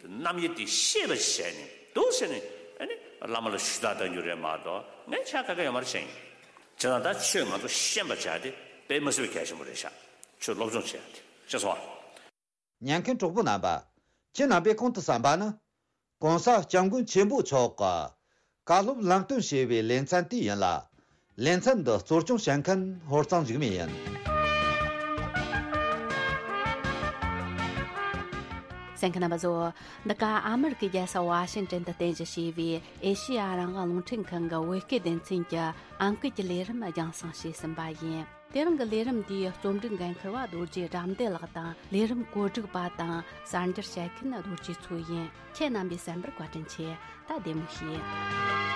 རྣམ་དབྱེ་དེ་ཤེས་པ་བྱས་ནས་འདུག་ཟེར་ནས་ཨ་ནི་བླ་མ་ལ་ཞུ་དག་གཏང་རྒྱུ་རེད་མ་གཏོགས་ངས་ཆ་ཁ་ཁ་ཡོད་མ་རེད་བཤད་ཡིན། བྱས་ཙང་ད་ཆོས་ང་ཚོ་ཤེས་པ་བྱ་དེ་དཔེ་མི་སྲིད་པའི་གལ་ཆེན་པོ་རེད་ཤག་ཆོས་སློབ་སྦྱོང་བྱེད་ཡག་དེ་ཤེས་སོང་ཨ། ཉན་མཁན་གྲོགས་པོ་རྣམ་པ། ཁྱེད་རྣམ་པས་གོང་དུ་གསན་པ་ནི། ༸གོང་ས་༸སྐྱབས་མགོན་ཆེན་པོ་མཆོག་གི་བཀའ་སློབ་ལམ་སྟོན་ཞེས་པའི་ལེ་ཚན་དེ་ཡིན་ལ། ལེ་ཚན་འདི་གཙོ་སྐྱོང་བྱེད་མཁན་ཧོར་གཙང་འཇིགས་མེད་ཡིན། གསན་མཁན་རྣམ་པ་ཚོ། འདི་ག་ཨ་མེ་རི་ཀའི་རྒྱལ་ས་ཝ་ཤིང་ཏན་དུ་རྟེན་གཞི་བྱས་པའི་ཨེ་ཤེ་ཡ་རང་དབང་རླུང་འཕྲིན་ཁང་གི་བོད་སྐད་སྡེ་ཚན་གྱི་ཨང་ཀི་གི་ལས་རིམ་རྒྱང་སྲིང་བྱས་ཟིན་པ་ཡིན། དེ་རིང་གི་ལས་རིམ་འདིའི་རྩོམ་སྒྲིག་འགན་འཁུར་བ་རྡོ་རྗེ་དགྲ་འདུལ་ལགས་དང་། ལས་རིམ་གོ་སྒྲིག་པ་དང་གསར་འགྱུར་བཤད་མཁན་རྡོ་རྗེ་མཚོ་ཡིན། ཁྱེད་རྣམ་པས་གསན་པར་བཀའ་དྲིན་ཆེ། ད་བདེ་མོ་བྱོས།